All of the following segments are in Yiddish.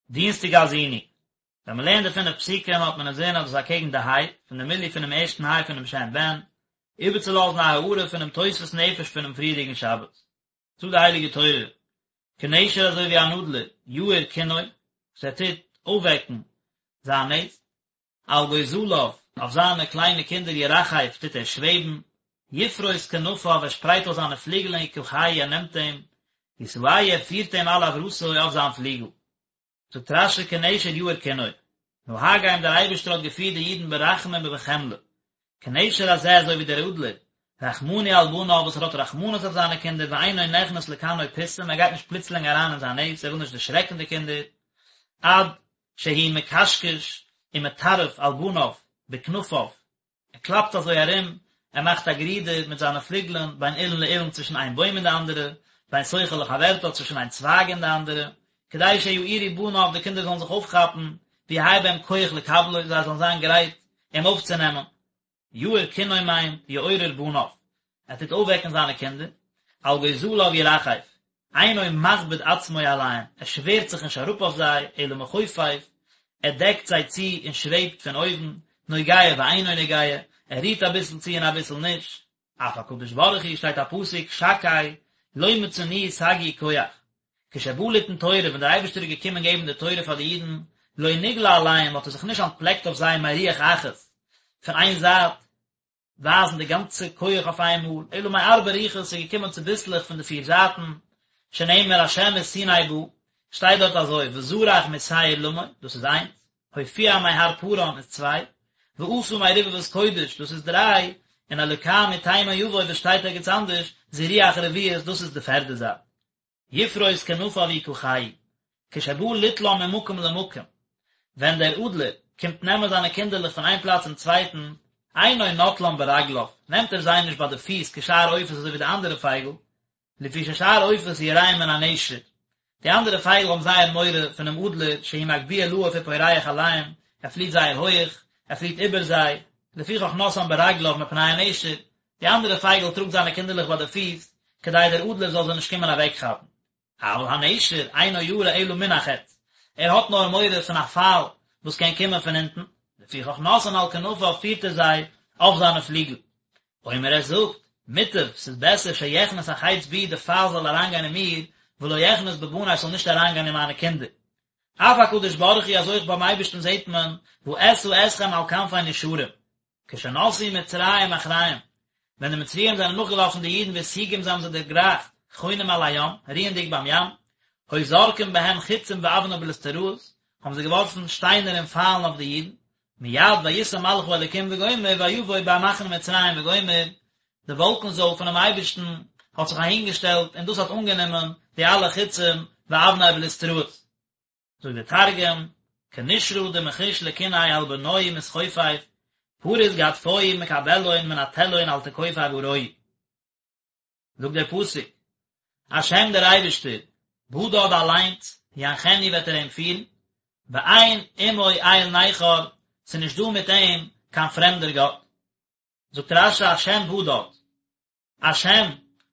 דינסטאג האזינו. ווען מען לערנט די פינף פסוקים האט מען אינזין אז דאס איז אקעגן די היי פון די מילוי פונעם ערשטן היי פונעם שם בן, איבערצולאזן א הארה פונעם תוספות נפש פונעם פריערדיגן שבת. זאגט די הייליגע תורה, כנשר אזוי ווי אן אדלער, יעיר קנו, וואס ער טוט אויפוועקן זיין נעסט, על גוזליו, אויף זיינע קליינע קינדער ירחף טוט ער שוועבן, יפרוס כנפיו ער שפרייט אויס זיינע פליגלען יקחהו ער נעמט אים, ישאהו ער פירט אים על אברתו אויף זיין פליגל. זאגט רש"י כנשר יעיר קנו, נהגם דער אייבערשטער האט געפירט די אידן ברחמים ובחמלה, כנשר הזה אזוי ווי דער אדלער, רחמני על בניו וואס ער האט רחמנות אויף זיינע קינדער ואינו נכנס לקנו פתאום ער גייט נישט פלוצלינג אריין אין זיין נעסט ער וויל נישט דערשרעקן די קינדער, עד שהוא מקשקש ומטרף על בניו בכנפיו, ער קלאפט אזוי ארום, ער מאכט א גערודער מיט זיינע פליגלען בין אילן לאילן צווישן איין בוים און די אנדערע, בין סוכה לחברתה צווישן איין צווייג און די אנדערע, כדי שיעורו בניו די קינדער זאלן זיך אויפכאפן, ויהא בהם כח לקבלו זיי זאלן זיין גרייט אים אויפצונעמען. יעיר קנו מיינט יעורר בניו, ער טוט אויפוועקן זיינע קינדער, על גוזליו ירחף, אינו מכביד עצמו עליהם, ער שווערט זיך נישט אראפ אויף זיי, אלא מכופף, ער דעקט זיי צו און שוועבט פון אויבן, נוגע ואינו נוגע, ער רירט אביסל צו און אביסל נישט. אף הקדוש ברוך הוא שטייט א פסוק, שקי, לא מצאנוהו סגי כח. כשבא ליתן תורה, ווען דער אייבערשטער איז געקומען געבן די תורה פאר די אידן, לא נגלה עליהם, האט ער זיך נישט אנטפלעקט אויף זיי מרוח אחת, פון איין זייט, ווייזן די גאנצע כח אויף איינמאל, אלא מארבע רוחות, ס'איז געקומען צוביסלעך פון די פיר זייטן, שנאמר השם מסיני בא, שטייט דארט אזוי, וזרח משעיר למו, דאס איז איינס, הופיע מהר פארן איז צוויי, ועשה מרבבות קודש, דאס איז דריי, און אלוקה מתימן יבוא וואס שטייט ערגעץ אנדערש, זו רוח רביעית, דאס איז די פערדע זייט. יפרוס כנפיו יקחהו, כשבא ליטלם ממקום למקום, ווען דער אדלער קומט נעמען זיינע קינדערלעך פון איין פלאץ צום צווייטן, אינו נוטלם ברגליו, נעמט ער זיי נישט ביי די פיס כשאר עופות אזוי ווי די אנדערע פייגל, לפי ששאר עופות יראים מן הנשר, די אנדערע פייגל האבן זייער מורא פונעם אדלער שהוא מגביה לעוף ופורח עליהם, ער פליט זייער הויעך, ער פליט איבער זיי, לפיכך נושאם ברגליו מפני הנשר, די אנדערע פייגל טראגט זיינע קינדערלעך ביי די פיס, כדי דער אדלער זאל זיי נישט קומען אוועקכאפן. אבל הנשר אינו ירא אלא מן החץ, ער האט נאר מורא פון א פייל וואס קען קומען פון אונטן, לפיכך נושאן על כנפיו פירט ער זיי אויף זיינע פליגל. אומר ער זאגט, מוטב, ס'איז בעסער שיכנס החץ בי די פייל זאל אריינגיין אין מיר, ולא יכנס בבני ס'זאל נישט אריינגיין אין מיינע קינדער. אף הקדוש ברוך הוא אז אויך ביים אייבערשטן זעט מען, ואשא אתכם על כנפי נשרים. כשנסעו מצרים אחריהם, ווען די מצריים זענען נאכגעלאפן די אידן והשיגום זיי האבן זיי דערגרייכט, חונים על הים, רוענדיג ביים ים, היו זורקים בהם חיצים ואבני בליסטראות, האבן זיי געווארפן שטיינער און פיילן אויף די אידן, מיד וישא מלאך האלוקים וגומר ויבוא במחנה מצרים וגומר, די וואלקן זויל פונעם אייבערשטן האט זיך אהינגעשטעלט און דאס האט אנגענומען די אלע חיצים ואבני בליסטראות. זאגט דער תרגום, כנשרא דמחיש לקיניה על בנוהי מתכופף, פריס גדפוהי מקבלהון מנטלהון על תכופי אברוהי. זאגט דער פסוק, השם דער אייבערשטער, בדד אליינס, ינחנו וועט ער אים פירן, ואין עמו אל נכר, ס'איז נישט דא מיט אים קיין פרעמדער גאט. זאגט רש"י השם בדד, השם,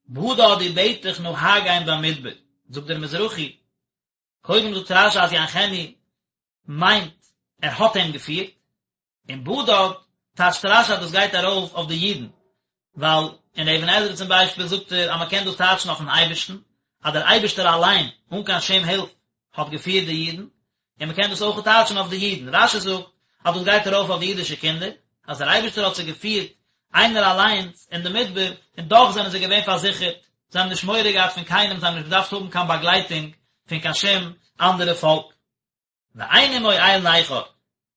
בדד ובטח נהגם במדבר, זאגט דער מזרחי, קודם זאגט רש"י אז ינחנו מיינט ער האט אים געפירט, און בדד טייטשט רש"י אז דאס גייט ארויף אויף די אידן, ווייל אין אבן עזרא צום ביישפיל זאגט ער אז מען קען דאס טייטשן אויפן אייבערשטן, אז דער אייבערשטער אליין אן קיין שום הילף האט געפירט די אידן, און מען קען דאס אויך טייטשן אויף די אידן, רש"י זאגט אז דאס גייט ארויף אויף די אידישע קינדער, אז דער אייבערשטער האט זיי געפירט איינער אליינס אין די מדבר, און דאך זענען זיי געווען פארזיכערט, זיי האבן נישט מורא געהאט פון קיינעם, זיי האבן נישט געדארפט האבן קיין באגלייטונג פון קיין שום אנדערע פאלק. ואין עמו אל נכר,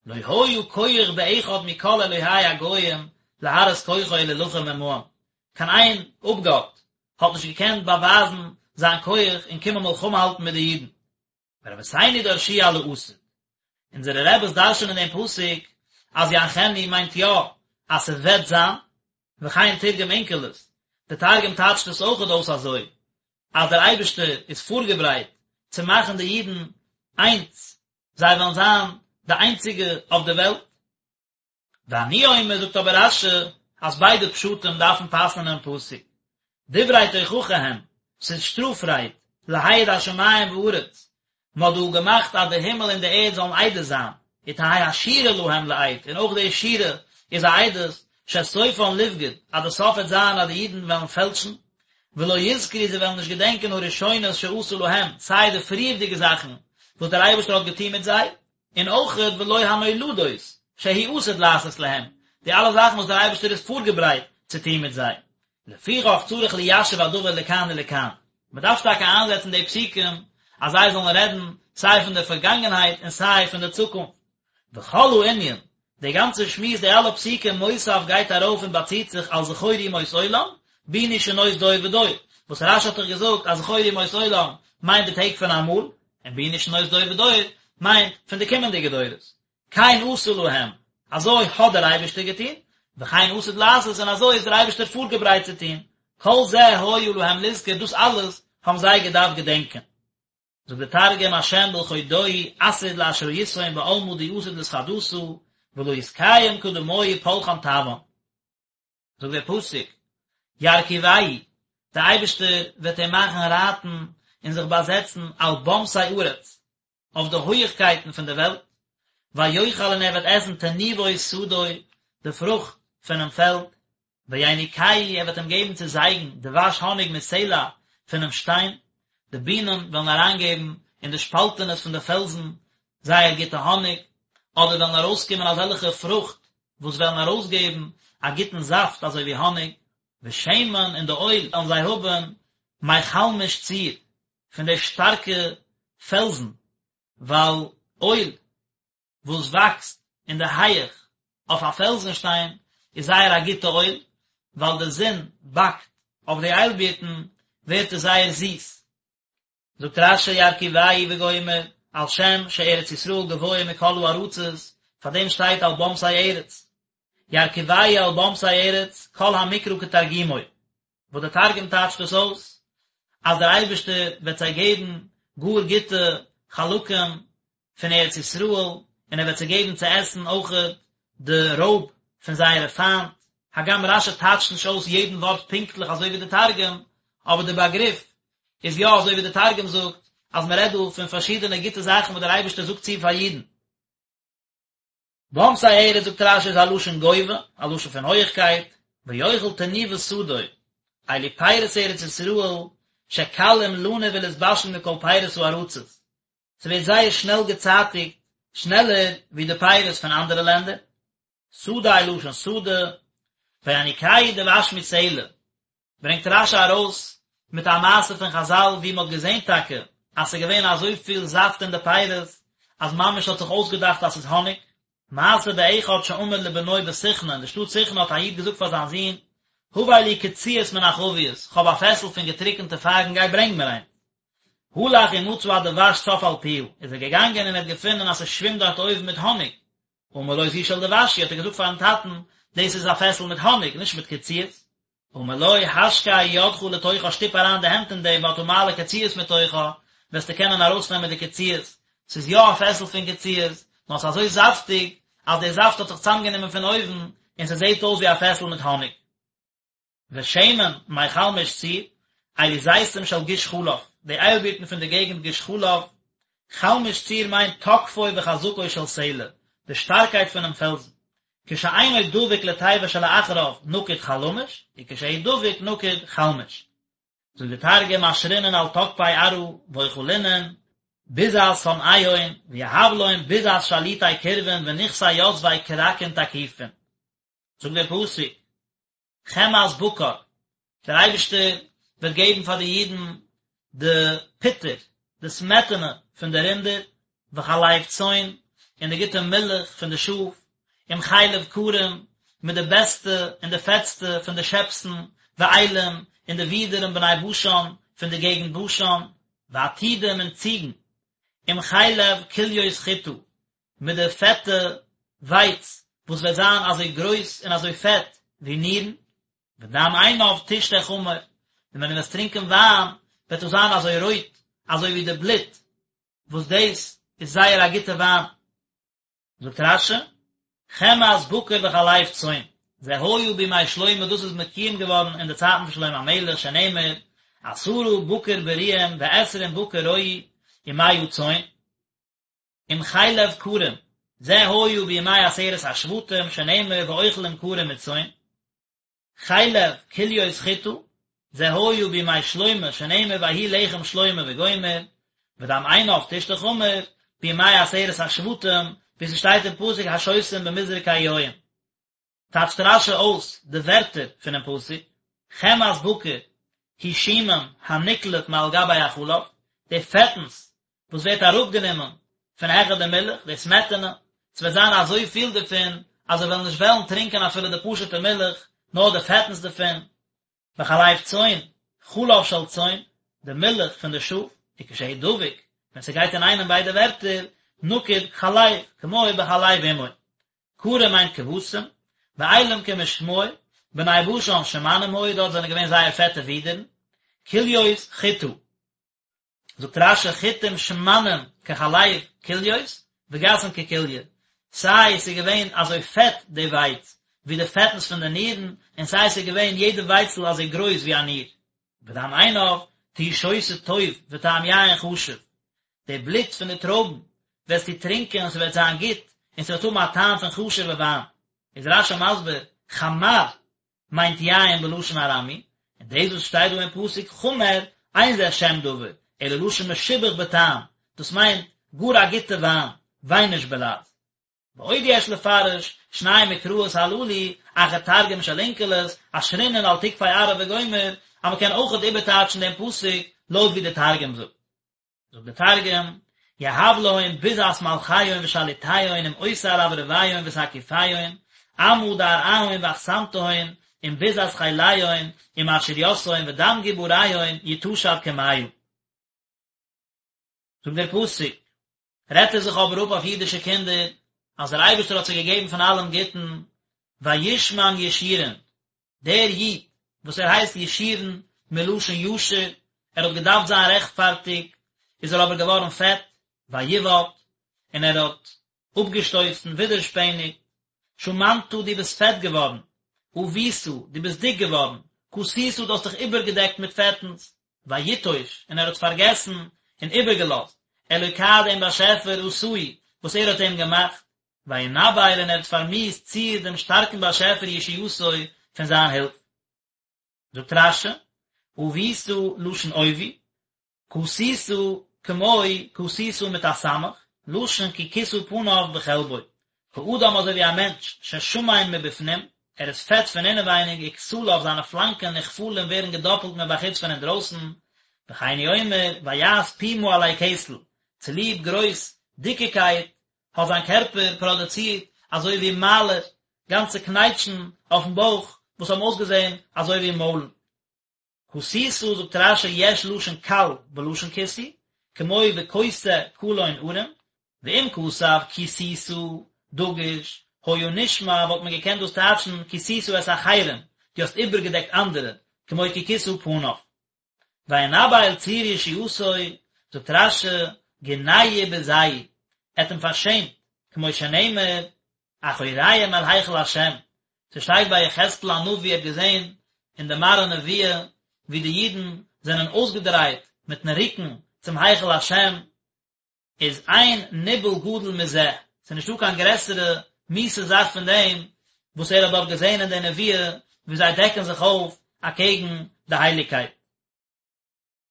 לא היה כח באחד מכל אלוהי הגוים להראות כוחו ולהילחם עמהם, קיין איין אפגאט האט נישט געקענט באווייזן זיין כח און קומען מלחמה האלטן מיט די אידן. ורבותינו דרשו על העתיד. אונזערע רעבעס דרש'נען דעם פסוק אז ינחנו מיינט יא אז ס'וועט זיין, וכן תרגם אונקלוס, די תרגום טייטשט עס אויכעט אויס אזוי, אז דער אייבערשטער איז פארגעברייט צו מאכן די אידן איינס, זיי וועלן זיין די איינציגע אויף די וועלט. ואני אומר זאגט אבער רש"י אז ביידע פשטים דארפן פאסן אינעם פסוק, דברי תוכחה הם, ס'איז שטראף רייד, להעיד השמים וארץ. מען האט דא געמאכט אז די הימל און די ערד זאלן עדות זיין, ותהא השירה להם לעד, און אויך די שירה איז א עדות, שסופן לבגוד, אז די סוף וועט זיין אז די אידן וועלן פעלשן, ולא יזכרו זיי וועלן נישט געדענקען הראשונות שעשה להם, סיי די פריערדיגע זאכן וואס דער אייבערשטער האט געטון מיט זיי, און אויכעט ולא הנולדות שהוא עתיד לעשות להם, די אלע זאכן וואס דער אייבערשטער איז פארגעברייט צו טון מיט זיי. לפיכך צריך ליישב הדבר לכאן ולכאן, מען דארף טאקע איינזעצן די פסוקים אז זיי זאלן רעדן סיי פון די פארגאנגענהייט און סיי פון די צוקונפט. וכל הענין, די גאנצע שמועס די אלע פסוקים מותיב גייט ארויף און באציט זיך על זכור ימות עולם, בינו שנות דור ודור, וואס רש"י האט דאך געזאגט אז זכור ימות עולם מיינט די טעג פון אמאל, און בינו שנות דור ודור מיינט פון די קומענדיגע דורות. כן עשה להם, אזוי האט דער אייבערשטער געטון, וכן עתיד לעשות, און אזוי איז דער אייבערשטער פארגעברייט צו טון, כל זה היה להם לזכור, דאס אלעס האבן זיי געדארפט געדענקען. זאגט דער תרגום השם בלחודוהי עתיד לאשראיתהון בעלמא די עתיד לתחדתא, ולא יתקיים קדמוהי פולחן טבען. זאגט דער פסוק, ירכיבהו, דער אייבערשטער וועט אים מאכן רייטן און זיך באזעצן על במתי ארץ, אויף די הויעכקייטן פון דער וועלט, ויאכל און ער וועט עסן תנובות שדי, די פרוכט פונעם פעלד, ויניקהו ער וועט אים געבן צו זייגן דבש האניג מסלע פונעם שטיין, די בינען וועלן אריינגעבן אין די שפאלטענעס פון די פעלזן זייער גוטע האניג, אדער וועלן ארויסקומען אזעלכע פרוכט וואס וועלן ארויסגעבן א גוטן זאפט אזוי ווי האניג, ושמן און די אויל וועלן זיי האבן מחלמיש צור, פון די שטארקע פעלזן, ווייל אויל וואס וואקסט אין די הייעך אויף א פעלזן שטיין איז זייער א גוטע אויל, ווייל די זון באקט אויף די איילבירטן ווערט עס זייער זיס. זאגט רש"י ירכיבהו וגומר, על שם שארץ ישראל גבוה מכל הארצות, פאר דעם שטייט על במתי ארץ. ירכיבהו על במתי ארץ, כל המקרא כתרגומו, וואס דער תרגום טייטשט דאס אויס, אז דער אייבערשטער וועט זיי געבן גאר גוטע חלקים פון ארץ ישראל, און ער וועט זיי געבן צו עסן אויכעט די רויב פון זייערע פיינט, הגם רש"י טייטשט נישט אויס יעדן ווארט פונקטליך אזוי ווי די תרגום, אבער די באגריף איז יא אזוי ווי די תרגום זאגט, אז מען רעדט דא פון פארשידענע גוטע זאכן וואס דער אייבערשטער זאגט צו פאר אידן. במתי ארץ זאגט רש"י איז א לשון גובה, א לשון פון הויעכקייט, ויאכל תנובות שדי, אלו פירות ארץ ישראל, שקלים לנוב ולהתבשל מכל פירות הארצות, ס'ווערט זייער שנעל געצייטיגט, שנעלער ווי די פירות פון אנדערע לענדער. שדי לשון שדה, ויניקהו דבש מסלע, ברענגט רש"י ארויס מיט א מעשה פון חז"ל ווי מ'האט געזען טאקע אז ס'איז געווען אזויפיל זאפט אין די פירות אז ממש האט זיך אויסגעדאכט אז ס'איז האניג. מעשה באחד שאמר לבנו בסיכנא, אין די שטאט סיכנא האט א איד געזאגט פאר זיין זון, הבא לי קציעות מן החבית, כ'האב א פעסל פון געטריקענטע פייגן גיי ברענג מיר איינס. הלך ומצא הדבש צף על פיה, איז ער געגאנגען און ער האט געפונען אז ס'שווימט דארט אויבן מיט האניג. אמר לו זו של דבש היא, האט ער געזאגט פארן טאטן, דאס איז א פעסל מיט האניג, נישט מיט קציעות. אמר לו, השקע ידך לתוכה, שטופ אריין די הענט אין דעם, ואתה מעלה קציעות מתוכה, וועסטו קענען ארויסנעמען די קציעות. ס'איז יא א פעסל פון קציעות, נאר ס'איז אזוי זאפטיג, אז די זאפט האט זיך צוזאמגענומען פון אויבן, און ס'זעט אויס ווי א פעסל מיט האניג. ושמן מחלמיש צור, אלו זיתים של גוש חלב, די איילבירטן פון די געגנט גוש חלב, חלמיש צור מיינט תוקפו וחזקו של סלע, די שטארקייט פונעם פעלזן, כשאינו דבוק לתיבה שלאחריו נקוד חלמיש, וכשהוא דבוק נקוד חלמיש. זאגט די תרגום אשרינון על תוקפי ארעא ואכלינון ביזת סנאיהון ויהב לון ביזת שליטי קרבין ונכסי יתבי כרכין תקיפין. זאגט דער פסוק, חמאת בקר, דער אייבערשטער וועט געבן פאר די אידן די פוטער, די סמעטענע פון די רינדער, וחלב צאן, און די גוטע מילך פון די שאף, עם חלב כרים, מיט די בעסטע און די פעטסטע פון די שעפסן, ואילים, און די ווידערן בני בשן, פון די געגנט בשן, ועתודים און ציגן, עם חלב כליות חיטה, מיט די פעטע ווייץ וואס וועט זיין אזוי גרויס און אזוי פעט ווי נירן, ודם עינב תשתה חמר, און ווען דו וועסט טרינקען וויין וועט עס זיין אזוי רויט אזוי ווי די בלוט, וואס דאס איז זייער א גוטע וויין. זאגט רש"י, חמאת בקר וחלב צאן, זה היה בימי שלמה דאס איז מקוים געווארן אין די צייטן פון שלמה המלך שנאמר, עשרה בקר בריאים ועשרים בקר רועי. ומאה צאן. עם חלב כרים, זה היה בימי עשרת השבטים שנאמר ואוכלים כרים מצאן. חלב כליות חיטה, זה היה בימי שלמה שנאמר ויהי לחם שלמה וגומר, ודם עינב תשתה חמר, בימי עשרת השבטים, ווי ס'שטייט אין פסוק השותים במזרקי יין. טייטשט רש"י אויס די ווערטער פונעם פסוק, חמאת בקר היא שומן הנקלף מעל גבי החלב, די פעטנס וואס ווערט אראפגענומען פון העכער די מילך, די סמעטענע, ס'וועט זיין אזויפיל דערפון אז זיי וועלן נישט וועלן טרינקען אפילו די פשוט'ע מילך, נאר די פעטנס דערפון. וחלב צאן, חלב של צאן, די מילך פון די שאף, וכשהוא דבוק, ווען ס'גייט אינאיינעם ביידע ווערטער, נקוד חלב, כמו בחלב אמו. כרים מיינט כבשים, ואילים כמשמעו, בני בשן שמנים היו, דארט זענען געווען זייער פעטע ווידערן, כליות חיטה. זאגט רש"י חיטים שמנים כחלב כליות וגסין ככליא, סיי ס'איז געווען אזוי פעט די ווייץ ווי די פעטנס פון די נירן, און סיי ס'איז געווען יעדע ווייצל אזוי גרויס ווי א ניר. ודם עינב תהי שותה טוב וטעם יין חשוב, די בלוט פון די טרויבן וועסטו טרינקען און ס'וועט זיין גוט, און ס'וועט האבן א טעם פון חשוב'ע וויין. איז רש"י מסביר, חמר מיינט יין בלשון ארמי, און דאס וואס שטייט דא אין פסוק חמר, אין זה שם דבר, אלא לשון משובח בטעם, דאס מיינט גאר א גוטע וויין, וויינוש בלע"ז. ועוד יש לפרש, שני מקראות הללו, אחר תרגום של אונקלוס, אשרינן על תקפי ארעא וגומר, אז מען קען אויכעט איבערטייטשן דעם פסוק לויט ווי דער תרגום זאגט. זאגט דער תרגום, יהב להון ביזת מלכיון ושליטיון עם עותר רברביון ותקיפיון, עמא דארעהון ואכסנתהון, עם ביזת חיליון, עם עשיריתהון ודם גבוריהון יטשב כמיא. זאגט דער פסוק, רעדט ער זיך אבער אפ אויף אידישע קינדער, אז דער אייבערשטער האט זיי געגעבן פון אלעם גוטן, וישמן ישורון, דער איד וואס ער הייסט ישורון מלשון ישר, ער האט געדארפט זיין רעכטפארטיג, איז ער אבער געווארן פעט, ויבעט, און ער האט אפגעשטויסן, ווידערשפעניגט, שמנת דו ביסט פעט געווארן, עבית, דו ביסט דיק געווארן, כסית דו האסט דיך איבערגעדעקט מיט פעטנס, ויטוש, און ער האט פארגעסן און איבערגעלאזט, אלוקה דעם באשעפער עשהו, וואס ער האט אים געמאכט, וינבל און ער האט פארמיאוסט צור דעם שטארקן באשעפער ישועתו פון זיין הילף. זאגט רש"י, עבית לשון עובי, כסית כמו כסית מיט א סמך, לשון כי כסה פניו בחלבו, כאדם אזוי ווי א מענטש ששמן מבפנים, ער איז פעט פון אינעווייניג וכתליו זיינע פלאנקען נכפלים ווערן געדאפלט מבחוץ פון אינדרויסן, וכן הוא אומר ויעש פומה עלי כתל, צוליב גרויס דיקיקייט האט זיין קערפער פראדוצירט אזוי ווי מיילער, גאנצע קנייטשן אויפן בויך וואס האבן אויסגעזען אזוי ווי מוילן. כסית זאגט רש"י יש לשון קל בלשון כיסוי, כמו וכוסה קלון ערום, ואם כתב כסית דגוש, היה נשמע וואלט מען געקענט דאס טייטשן כסית את אחרים, דו האסט איבערגעדעקט אנדערע, כמו כי כסה פניו. וינבל צור ישועתו, זאגט רש"י, גינהו ובזהו, ער האט אים פארשעמט, כמו שנאמר, אחוריהם אל היכל השם, ס'שטייט ביי יחזקאל הנביא ער האט געזען אין די מראה נבואה ווי די אידן זענען אויסגעדרייט מיטן רוקן צום היכל השם, איז אין ניבול גדול מזה, ס'איז נישטא קיין גרעסערע מיאוסע זאך פון דעם וואס ער האט דארט געזען אין די נבואה ווי זיי דעקן זיך אויף אקעגן די הייליגקייט.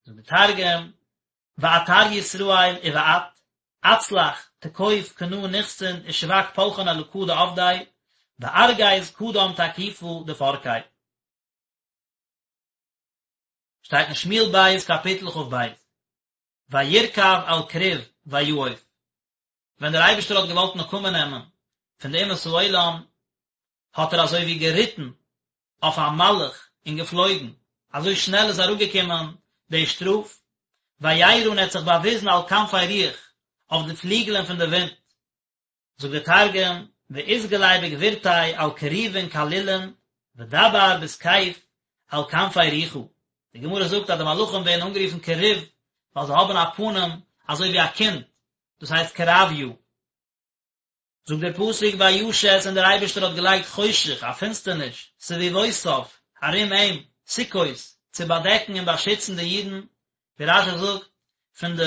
זאגט די תרגום, ועתר ישראל ובעט, עצלח תקוף קנה נכסין ושבק פלחין אלקא דעבדי, וארגז קדם תקיפא דפרקיה. שטייט אין שמואל ב' קאפיטל כ"ב, וירכב על כרוב ויעף, ווען דער אייבערשטער האט געוואלט נקמה נעמען פון די אומות העולם, האט ער אזוי ווי געריטן אויף א מלאך און געפלויגן, אזוי שנעל איז אראפגעקומען די שטראף, וירא און ער האט זיך באוויזן על כנפי רוח, אויף די פליגלען פון די ווינט. זאגט דער תרגום, ואתגלי בגבורתיה על כרובין קלילין, ודבר בתקיף על כנפי רוחא, די גמרא זאגט אז די מלאכים ווערן אנגערופן כרוב ווייל זיי האבן א פנים אזוי ווי א קינד, דאס הייסט כרביא. זאגט דער פסוק וישת און דער אייבערשטער האט געלייגט חושך, א פינסטערניש, סביבותיו, ארום אים, סוכות, צו באדעקן און באשיצן די אידן, ווי רש"י זאגט, פון די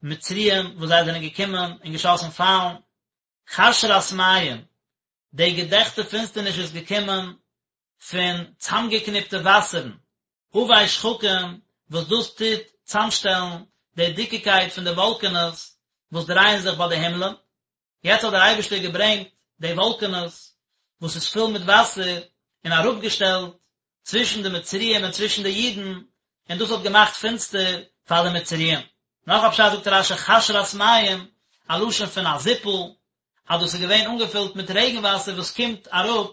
מצריים וואס זיי זענען געקומען און געשאסן פיילן, חשרת מים, די געדעכטע פינסטערניש איז געקומען פון צאמגעקניפטע וואסערן, עבי שחקים, וואס דאס טוט צאמשטעלן די דיקיקייט פון די וואלקענעס וואס דרייען זיך ביי די הימלען. יעצט האט דער אייבערשטער געברענגט די וואלקענעס וואס איז פול מיט וואסער און אראפגעשטעלט צווישן די מצריים און צווישן די אידן, און דאס האט געמאכט פינסטער פאר די מצריים. נאך א פשט זאגט רש"י חשרת מים, א לשון פון א זיפל, אז דאס איז געווען אנגעפילט מיט רעגן וואסער וואס קומט אראפ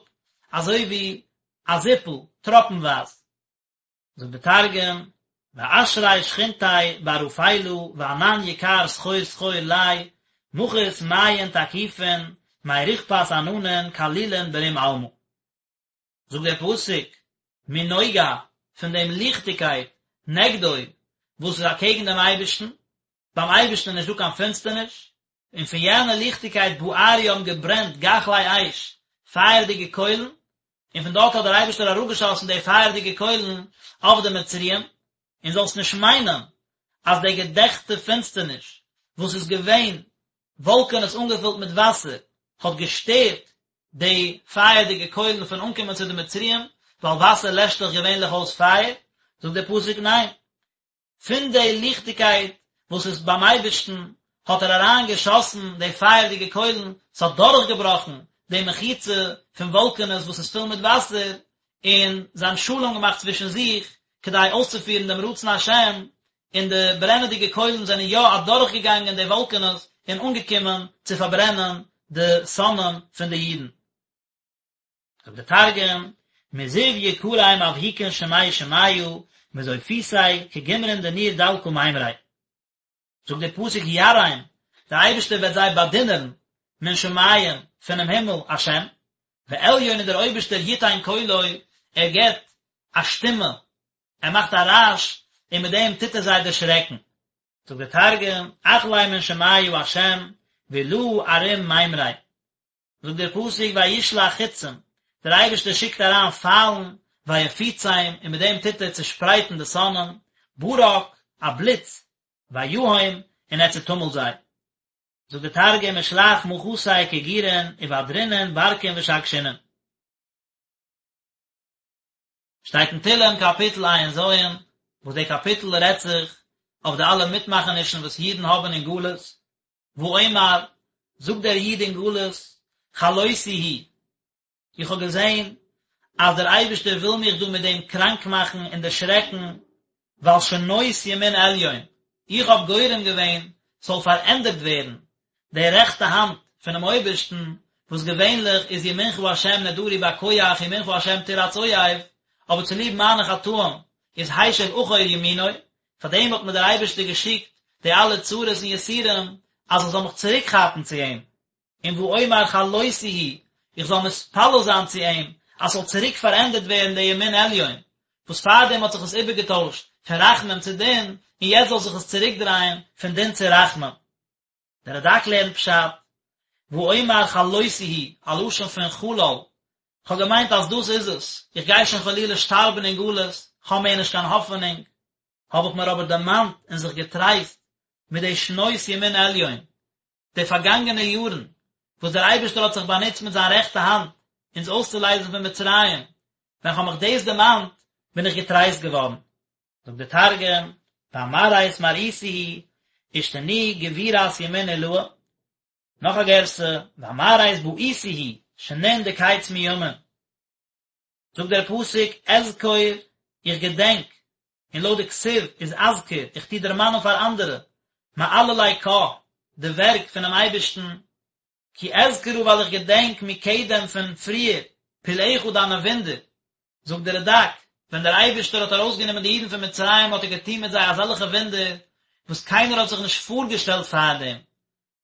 אזוי ווי א זיפל, טראפנווייז. זאגט די תרגום, ואשרי שכינתיה בערפילא וענן יקר סחור סחור ליה, מחית מיין תקיפין מרוכפת עננין כלילין ברום עלמא. זאגט דער פסוק, מנוגה, פון דעם ליכטיגקייט, נגדו, וואס איז אקעגן דעם אייבערשטן, ביים אייבערשטן איז נישטא קיין פינסטערניש, און פון יענע ליכטיגקייט בערו האבן געברענט גחלי אש, פייערדיגע קוילן, און פון דארט האט דער אייבערשטער אראפגעשאסן די פייערדיגע קוילן אויף די מצריים, און זאלסט נישט מיינען אז די געדעכטע פינסטערניש וואס איז געווען וואלקענעס אנגעפילט מיט וואסער האט געשטערט די פייערדיגע קוילן פון אנקומען צו די מצריים, ווייל וואסער לעשט דאך געווענליך אויס פייער, זאגט דער פסוק ניין, פון די ליכטיגקייט וואס איז ביים אייבערשטן האט ער אריין געשאסן די פייערדיגע קוילן, ס'האט דורכגעבראכן די מחיצה פון וואלקענעס וואס איז פול מיט וואסער, און זיי האבן שלום געמאכט צווישן זיך כדי אויסצופירן דעם רצון השם, און די ברענעדיגע קוילן זענען יא אדורכגעגאנגען די וואלקענעס און אנגעקומען צו פארברענען די שונאים פון די אידן. זאגט דער תרגום, מזיו יקריה מבהיקין שמי שמיא, מזופיתיה כגומרין דניר דלקא מימריה. זאגט דער פסוק ירעים, דער אייבערשטער וועט זיי באדינערן, מן שמים, פונעם הימל, השם, ועליון און דער אויבערשטער יתן קולו, ער געבט א שטימע, ער מאכט א רעש, און מיט דעם טוט ער זיי דערשרעקן. זאגט דער תרגום, אכלי מן שמיא השם, ועילאה ערים מימריה. זאגט דער פסוק וישלח חצים, דער אייבערשטער שיקט אריין פיילן, ויפוצם, און מיט דעם טוט ער צעשפרייטן די שונאים, ברק, א בליץ, ויהם, און ער צעטומלט זיי. זאגט דער תרגום ושלח מחתיה כגורין ובדרינון ברקין ושגשינון. שטייט אין תהלים קאפיטל ע"ז, וואס דער קאפיטל רעדט זיך אויף די אלע מיטמאכענישן וואס אידן האבן אין גלות, ואומר, זאגט דער איד אין גלות, חלותי היא, איך האב געזען אז דער אייבערשטער וויל מיך דא מיט דעם קראנק מאכן און דערשרעקן, ווייל שנות ימין עליון, איך האב גורם געווען ס'זאל פארענדערט ווערן די רעכטע האנט פונעם אויבערשטן, וואס געווענליך איז ימינך השם נאדרי בכח ימינך השם תרעץ אויב, אבער צוליב מיינע חטאים איז השיב אחור ימינו, פאר דעם האט מיר דער אייבערשטער געשיקט די אלע צרות און יסורים, אז איך זאל מיך צוריק כאפן צו אים, און ואומר חלותי היא, איך זאל מתפלל זיין צו אים, אז ס'זאל צוריק פארענדערט ווערן דער ימין עליון, וואס פארדעם האט זיך עס איבערגעטוישט פון רחמים צו דין, און יעצט זאל זיך עס צוריקדרייען פון דין צו רחמים. דער רד"ק לערנט פשט, ואומר חלותי היא, א לשון פון חלל, כ'האב געמיינט אז דאס איז עס, איך גיי שוין חלילה שטארבן אין גלות, כ'האב מער נישט קיין האפענונג, האב איך מיר אבער דערמאנט און זיך געטרייסט מיט די שנות ימין עליון, די פארגאנגענע יארן וואס דער אייבערשטער האט זיך באנוצט מיט זיין רעכטע האנט אונז אויסצולייזן פון מצרים, ווען כ'האב מיך דאס דערמאנט, בין איך געטרייסט געווארן. זאגט דער תרגום, ואמרית מרעיתא היא, אשתני גבורת ימין עילאה. נאך א גירסא, ואמרית בעיתי היא, שנין דקץ מימין. זאגט דער פסוק, אזכור, איך געדענק, און לויט די כתיב איז אזכיר, איך טו דערמאנען פאר אנדערע, מעללי קה, די ווערק פונעם אייבערשטן, כי אזכרה ווייל איך געדענק מקדם פון פריער, פלאיך דיינע וואונדער. זאגט דער רד"ק, ווען דער אייבערשטער האט ארויסגענומען די אידן פון מצרים האט ער געטון מיט זיי אזעלכע וואונדער וואס קיינער האט זיך נישט פארגעשטעלט פארדעם,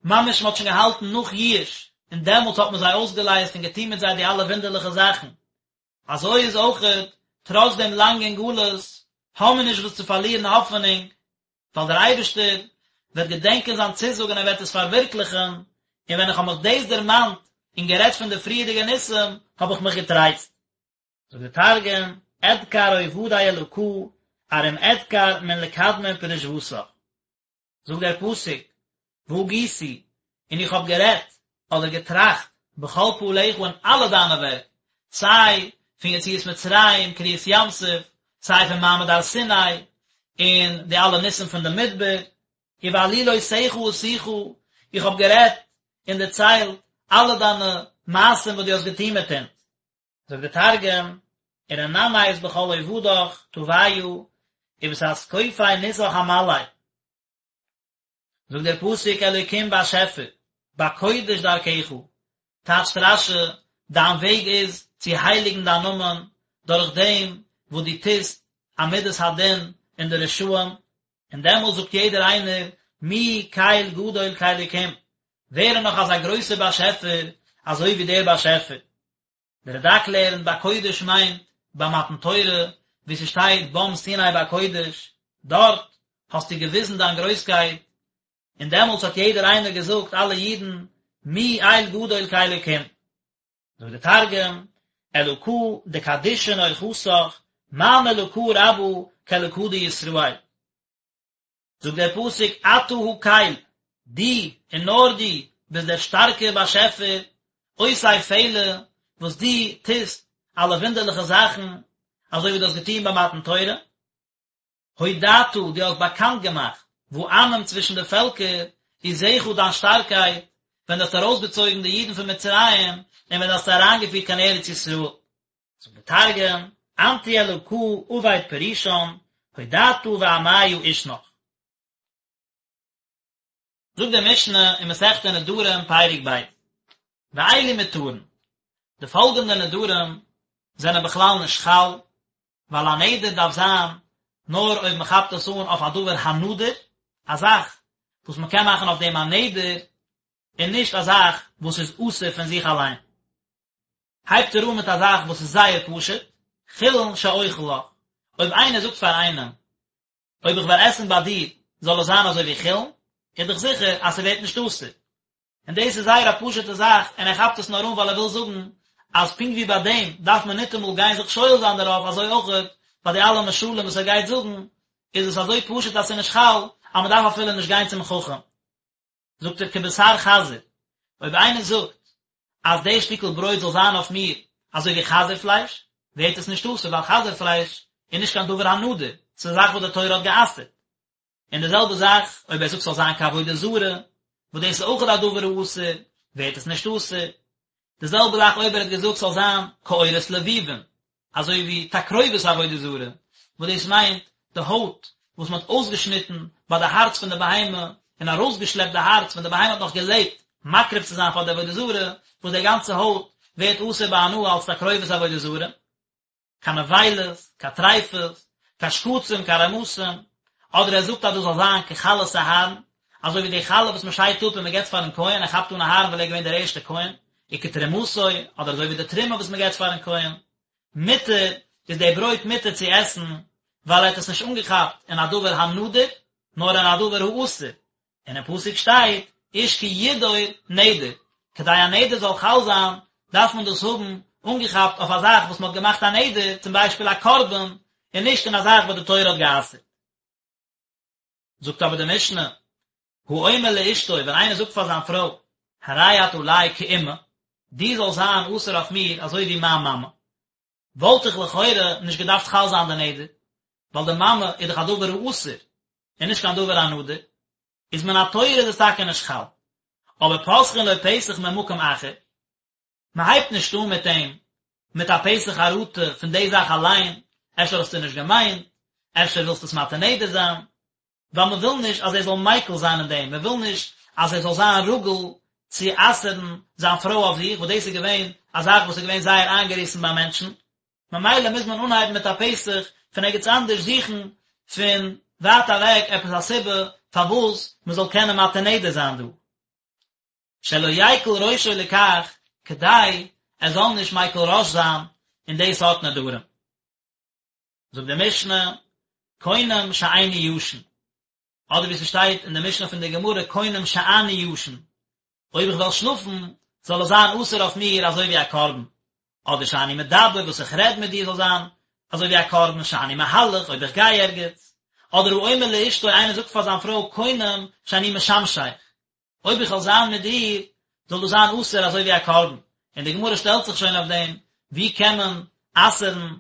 ממש מען האט שוין געהאלטן נאך ייאוש, און דעמאלטס האט מען זיי אויסגעלייזט און געטון מיט זיי די אלע וואונדערליכע זאכן. אזוי איז אויכעט, טראץ דעם לאנגן גלות, האבן מיר נישט וואס צו פארלירן האפענונג, ווייל דער אייבערשטער וועט געדענקען זיין צוזאג און ער וועט עס פארווירקליכן, און ווען איך האב מיך דאס דערמאנט און גערעדט פון די פריערדיגע ניסים, האב איך מיך געטרייסט. זאגט דער תרגום, אדכר עובדי אלקא, ארום אדכר מן לקדמין פרישותך. זאגט דער פסוק, והגיתי, און איך האב גערעדט, אדער געטראכט, בכל פעליך אין אלע דיינע ווערק, סיי פון יציאת מצרים, קריעת ים סוף, סיי פון מעמד הר סיני, און די אלע ניסים פון די מדבר, ובעלילותיך אשיחה, איך האב גערעדט און דערציילט אלע דיינע מעשים וואס דו האסט געטון מיט אונז. זאגט דער תרגום, ורנמית בכל עובדך טביא, ובתתקופי ניסך אמלי. זאגט דער פסוק אלוקים באשעפער, בקודש דרכך, טייטשט רש"י, דיין וועג איז צו הייליגן דיין נאמען דורך דעם וואס דו טוסט א מדת הדין אין די רשעים, און דעמאלט זאגט יעדער איינער, מי קל גדול כאלוקים, ווער איז נאך אזא גרויסער באשעפער אזוי ווי דער באשעפער? דער רד"ק לערנט בקודש מיינט ביי מתן תורה, ווי ס'שטייט בם סיני בקודש, דארט האסטו געוויזן דיין גרויסקייט, און דעמאלטס האט יעדער איינער געזאגט, אלע אידן, מי אל גדול כאלוקים. זאגט דער תרגום, אלקא דקדישין אורחתך, מאן אלקא רבא כאלקא דישראל. זאגט דער פסוק אתה הקל, דו און נאר דו ביסט דער שטארקער באשעפער, עושה פלא, וואס דו טוסט אלע וואונדערליכע זאכן, אזוי ווי דו האסט געטון ביי מתן תורה. הודעת, דו האסט באקאנט געמאכט, בעמים צווישן די פעלקער, עוזך דיין שטארקייט, ווען דו האסט ארויסגעצויגן די אידן פון מצרים, און ווען דו האסט זיי אריינגעפירט קיין ארץ ישראל. זאגט דער תרגום, אנת הוא אלקא עביד פרישן, הודעתא בעמיא עושנך. זאגט די משנה אין מסכת נדרים פרק ב', ואלו מותרין, די פאלגענדע נדרים זענען בכלל נישט חל, ווייל א נדר דארף זיין נאר אויב מען כאפט עס אן אויף א דבר הנדור, א זאך וואס מען קען מאכן אויף דעם א נדר, און נישט א זאך וואס איז אסור פון זיך אליין. הייבט ער אן מיט א זאך וואס איז זייער פשוט, חולין שאוכל לך, אויב איינער זאגט פאר איינעם, אויב איך וועל עסן ביי דיר זאל עס זיין אזוי ווי חולין, איז דאך זיכער אז ס'ווערט נישט אסור. און דאס איז זייער א פשוט'ע זאך, און ער כאפט עס נאר אן ווייל ער וויל זאגן אז פונקט ווי ביי דעם דארף מען ניטאמאל גיין זיך שואל זיין דערויף, אזוי אויך ביי די אלע משלים וואס ער גייט זאגן, איז עס אזוי פשוט אז ס'איז נישט חל, אז מ'דארף אפילו נישט גיין צום חכם. זאגט ער כבשר חזיר, אויב איינער זאגט אז די שטיקל ברויט זאל זיין אויף מיר אזוי ווי חזיר פלייש, ווערט עס נישט אסור ווייל חזיר פלייש איז נישט קיין דבר הנדור, ס'איז א זאך וואס די תורה האט גע'אסר'ט. און די זעלבע זאך אויב ער זאגט ס'זאל זיין כעבודה זרה, וואס דאס איז אויך א דבר האסור, ווערט עס נישט אסור. די זעלבע זאך אויב ער האט געזאגט ס'זאל זיין כעורות לבובין, אזוי ווי תקרובת עבודה זרה, וואס דאס מיינט די הויט וואס מען האט אויסגעשניטן ביי די הארץ פון די בהמה און ארויסגעשלעפט די הארץ ווען די בהמה האט נאך געלעבט מקריב צו זיין פאר די עבודה זרה, וואס די גאנצע הויט ווערט אסור בהנאה אלס תקרובת עבודה זרה. קיין נבילות, קיין טריפות, קיין שקצים, קיין רמסים, אדער ער זאגט אז דאס זאל זיין כחלת אהרן, אזוי ווי די חלה וואס מען שיידט אפ און מען געבט פארן כהן, ער כאפט אן אהרן ווייל ער איז געווען דער ערשטער כהן, וכתרומתו, אדער אזוי ווי די תרומה וואס מען געבט פארן כהן. מותר, איז די ברויט מותר צו עסן, ווייל ער האט עס נישט אנגעכאפט אין א דבר הנדור, נאר אין א דבר האסור, און אין פסוק שטייט איש כי ידור נדר, כדי א נדר זאל חל זיין דארף מען דאס האבן אנגעכאפט אויף א זאך וואס מען האט געמאכט א נדר, צום ביישפיל א קרבן, און נישט אין א זאך וואס די תורה האט גע'אסר'ט. זאגט אבער די משנה, האומר לאשתו, ווען איינער זאגט פאר זיין פרוי, הרי את עלי כאמא, דו זאלסט זיין אסור אויף מיר אזוי ווי מיין מאמע, וואלט איך לכאורה נישט געדארפט חל זיין די נדר, ווייל די מאמע איז דאך א דבר האסור, און נישט קיין דבר הנדור, איז מן התורה איז עס טאקע נישט חל, אבער פותחין לו פתח ממקום אחר, מען הייבט נישט אן מיט אים מיט א פתח חרטה פון די זאך אליין, אפשר האסטו נישט געמיינט, אפשר ווילסטו עס מתיר נדר זיין, ווייל מען וויל נישט אז ער זאל מיקל זיין אין דעם, מען וויל נישט אז ער זאל זיין רגיל צו אסר'ן זיין פרוי אויף זיך, וואס דאס איז געווען א זאך וואס איז געווען זייער איינגעריסן ביי מענטשן, ממילא מוז מען אנהייבן מיט א פתח פון ערגעץ אנדערש זוכן פון ווייט אוועק עפעס א סיבה פארוואס מען זאל קענען מתיר נדר זיין דא. שלא יקל ראשו לכך, כדי ער זאל נישט מיקל ראש זיין אין די סארט נדרים. זאגט די משנה, קונם שאיני ישן, אדער ווי ס'שטייט אין די משנה פון די גמרא קונם שאני ישן, אויב איך וועל שלאפן זאל עס זיין אסור אויף מיר אזוי ווי א קרבן, אדער שאני מדבר וואס איך רעד מיט דיר זאל זיין אזוי ווי א קרבן, שאני מהלך אויב איך גיי ערגעץ, אדער האומר לאשתו איינער זאגט פאר זיין פרוי קונם שאני משמשך, אויב איך וועל זיין מיט דיר זאל דאס זיין אסור אזוי ווי א קרבן, און די גמרא שטעלט זיך שוין אויף דעם, ווי קען מען אסר'ן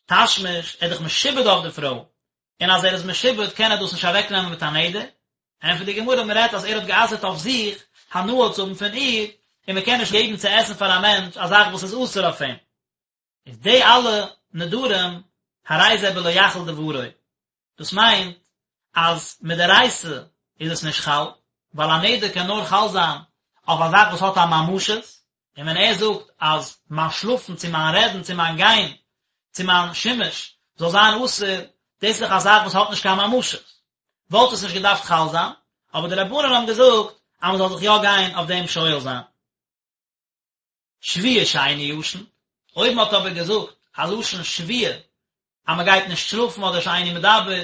תשמיש, ער איז דאך משועבד אויף די פרוי, און אז ער איז משועבד קען ער דאס נישט אוועקנעמען מיט א נדר, ענטפערט די גמרא מען רעדט אז ער האט גע'אסר'ט אויף זיך הנאה צו האבן פון איר, און מען קען נישט געבן צו עסן פאר א מענטש א זאך וואס איז אסור אויף אים. איז די אלע נדרים הרי זה בלא יחל דברו, דאס מיינט אז מדאורייתא איז עס נישט חל, ווייל א נדר קען נאר חל זיין אויף א זאך וואס האט א ממשות, און ווען ער זאגט אז מיין שלאפן צו מיין רעדן צו מיין גיין צו מיין שימוש זאל זיין אסור, דאס איז דאך א זאך וואס האט נישט קיין ממשות, וואלט עס נישט געדארפט חל זיין, אבער די רבנן האבן געזאגט אז מען זאל זיך יא גיין אויף דעם שואל זיין. שבועה שאיני ישן, אויב מען האט אבער געזאגט א לשון שבועה אז מען גייט נישט שלאפן אדער שאיני מדבר,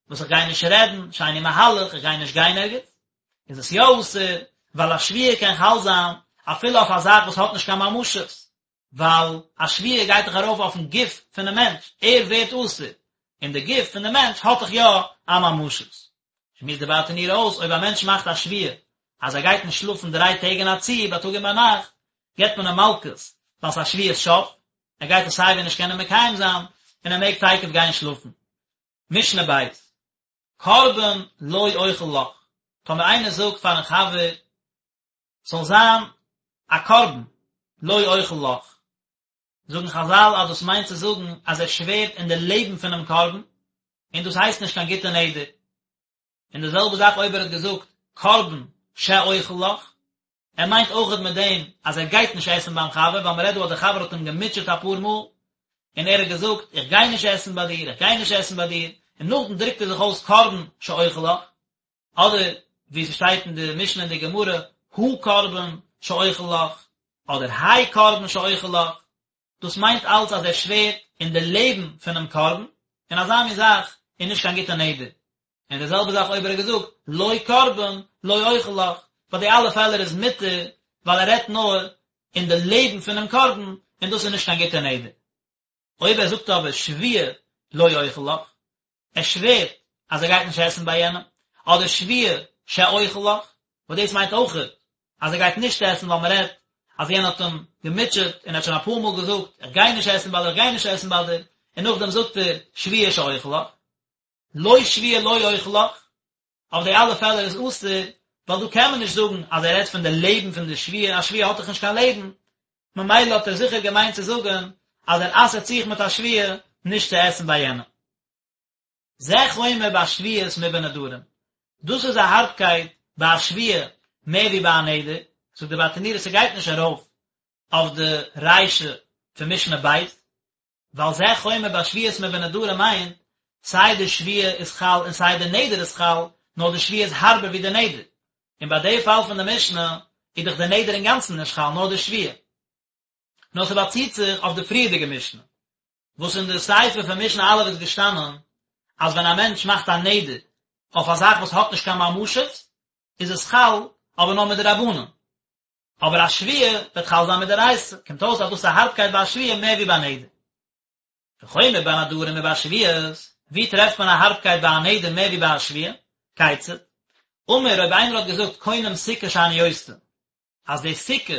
וואס איך גיי נישט רעדן, שאיני מהלך, איך גיי נישט גיין ערגעץ, איז עס יא אסור, ווייל א שבועה קען חל זיין אפילו אויף א זאך וואס האט נישט קיין ממשות, ווייל א שבועה גייט דאך ארויף אויפן גוף פונעם מענטש, ער ווערט אסור, און די גוף פון די מענטש האט דאך יא א ממשות. שמועסט די ברטנורא אויס, אויב א מענטש מאכט א שבועה אז ער גייט נישט שלאפן דריי טעג אין א צי, בייטאג און ביינאכט, געבט מען אים מלקות, ווייל ס'איז א שבועת שוא, ער גייט עס סייווי נישט קענען מקיים זיין, און ער מעג תיכף גיין שלאפן. משנה בית, קרבן לא אוכל לך, טאמער איינער זאגט פארן חבר, ס'זאל זיין א קרבן לא אוכל לך, זאגן חזל אז דאס מיינט צו זאגן אז ער שווערט אין די לעבן פונעם קרבן, און דאס הייסט נישט קיין גוטע נדר. און די זעלבע זאך אויב ער האט געזאגט קרבן שאוכל לך, ער מיינט אויכעט מיט דעם אז ער גייט נישט עסן ביים חבר, ווייל מ'רעדט דא אז דער חבר האט אים געמוטשעט אפאר מאל, און ער האט געזאגט איך גיי נישט עסן ביי דיר, איך גיי נישט עסן ביי דיר, און נאכדעם דרוקט ער זיך אויס קרבן שאוכל לך, אדער ווי ס'שטייט אין די משנה אין די גמרא, הקרבן שאוכל לך, אדער האי קרבן שאוכל לך, דאס מיינט אלץ אז ער שווערט אין די לעבן פונעם קרבן, און אזא מין זאך איז נישט קיין גוטע נדר. און די זעלבע זאך אויב ער האט געזאגט לא קרבן לא אוכל לך, ביי די אלע פעלער איז מותר ווייל ער רעדט נאר אין די לעבן פונעם קרבן, און דאס איז נישט קיין גוטע נדר. אויב ער זאגט אבער שבועה לא אוכל לך, ער שווערט אז ער גייט נישט עסן ביי יענעם, אדער שבועה שאוכל לך, וואס דאס מיינט אויכעט אז ער גייט נישט עסן ווייל מען רעדט אז יענער האט אים געמוטשעט און ער האט שוין אפאר מאל געזאגט איך גיי נישט עסן ביי דיר איך גיי נישט עסן ביי דיר, און נאכדעם זאגט ער שבועה שאוכל לך, לא שבועה לא אוכל לך, אויף די אלע פעלער איז אסור, ווייל דא קען מען נישט זאגן אז ער רעדט פון די לעבן פון די שבועה, א שבועה האט דאך נישט קיין לעבן, ממילא האט ער זיכער געמיינט צו זאגן אז ער אסר'ט זיך מיט א שבועה נישט צו עסן ביי יענעם. זה חומר בשבועות מבנדרים, דאס איז א הארבקייט ביי א שבועה מער ווי ביי א נדר, זאגט די ברטנורא ס'גייט נישט ארויף אויף די רישא פון משנה ב', ווייל זה חומר בשבועות מבנדרים מיינט, סיי די שבועה איז חל און סיי די נדר איז חל, נאר די שבועה איז הארבער ווי די נדר. און ביי די פאל פון די משנה איז דאך די נדר אינגאנצן נישט חל נאר די שבועה. נאר ס'באציט זיך אויף די פריערדיגע משנה, וואס אין די סיפא פון משנה א' איז געשטאנען אז ווען א מענטש מאכט א נדר אויף א זאך וואס האט נישט קיין ממשות איז עס חל אבער נאר מדרבנן. אבער א שבועה וועט חל זיין מדאורייתא, קומט אויס אז דאס איז א הארבקייט ביי א שבועה מער ווי ביי נדר. וחומר בנדרים מבשבועות, ווי טרעפט מען א הארבקייט ביי א נדר מער ווי ביי א שבועה? כיצד? אמר אויב איינער האט געזאגט קונם סוכה שאני עושה, אז די סוכה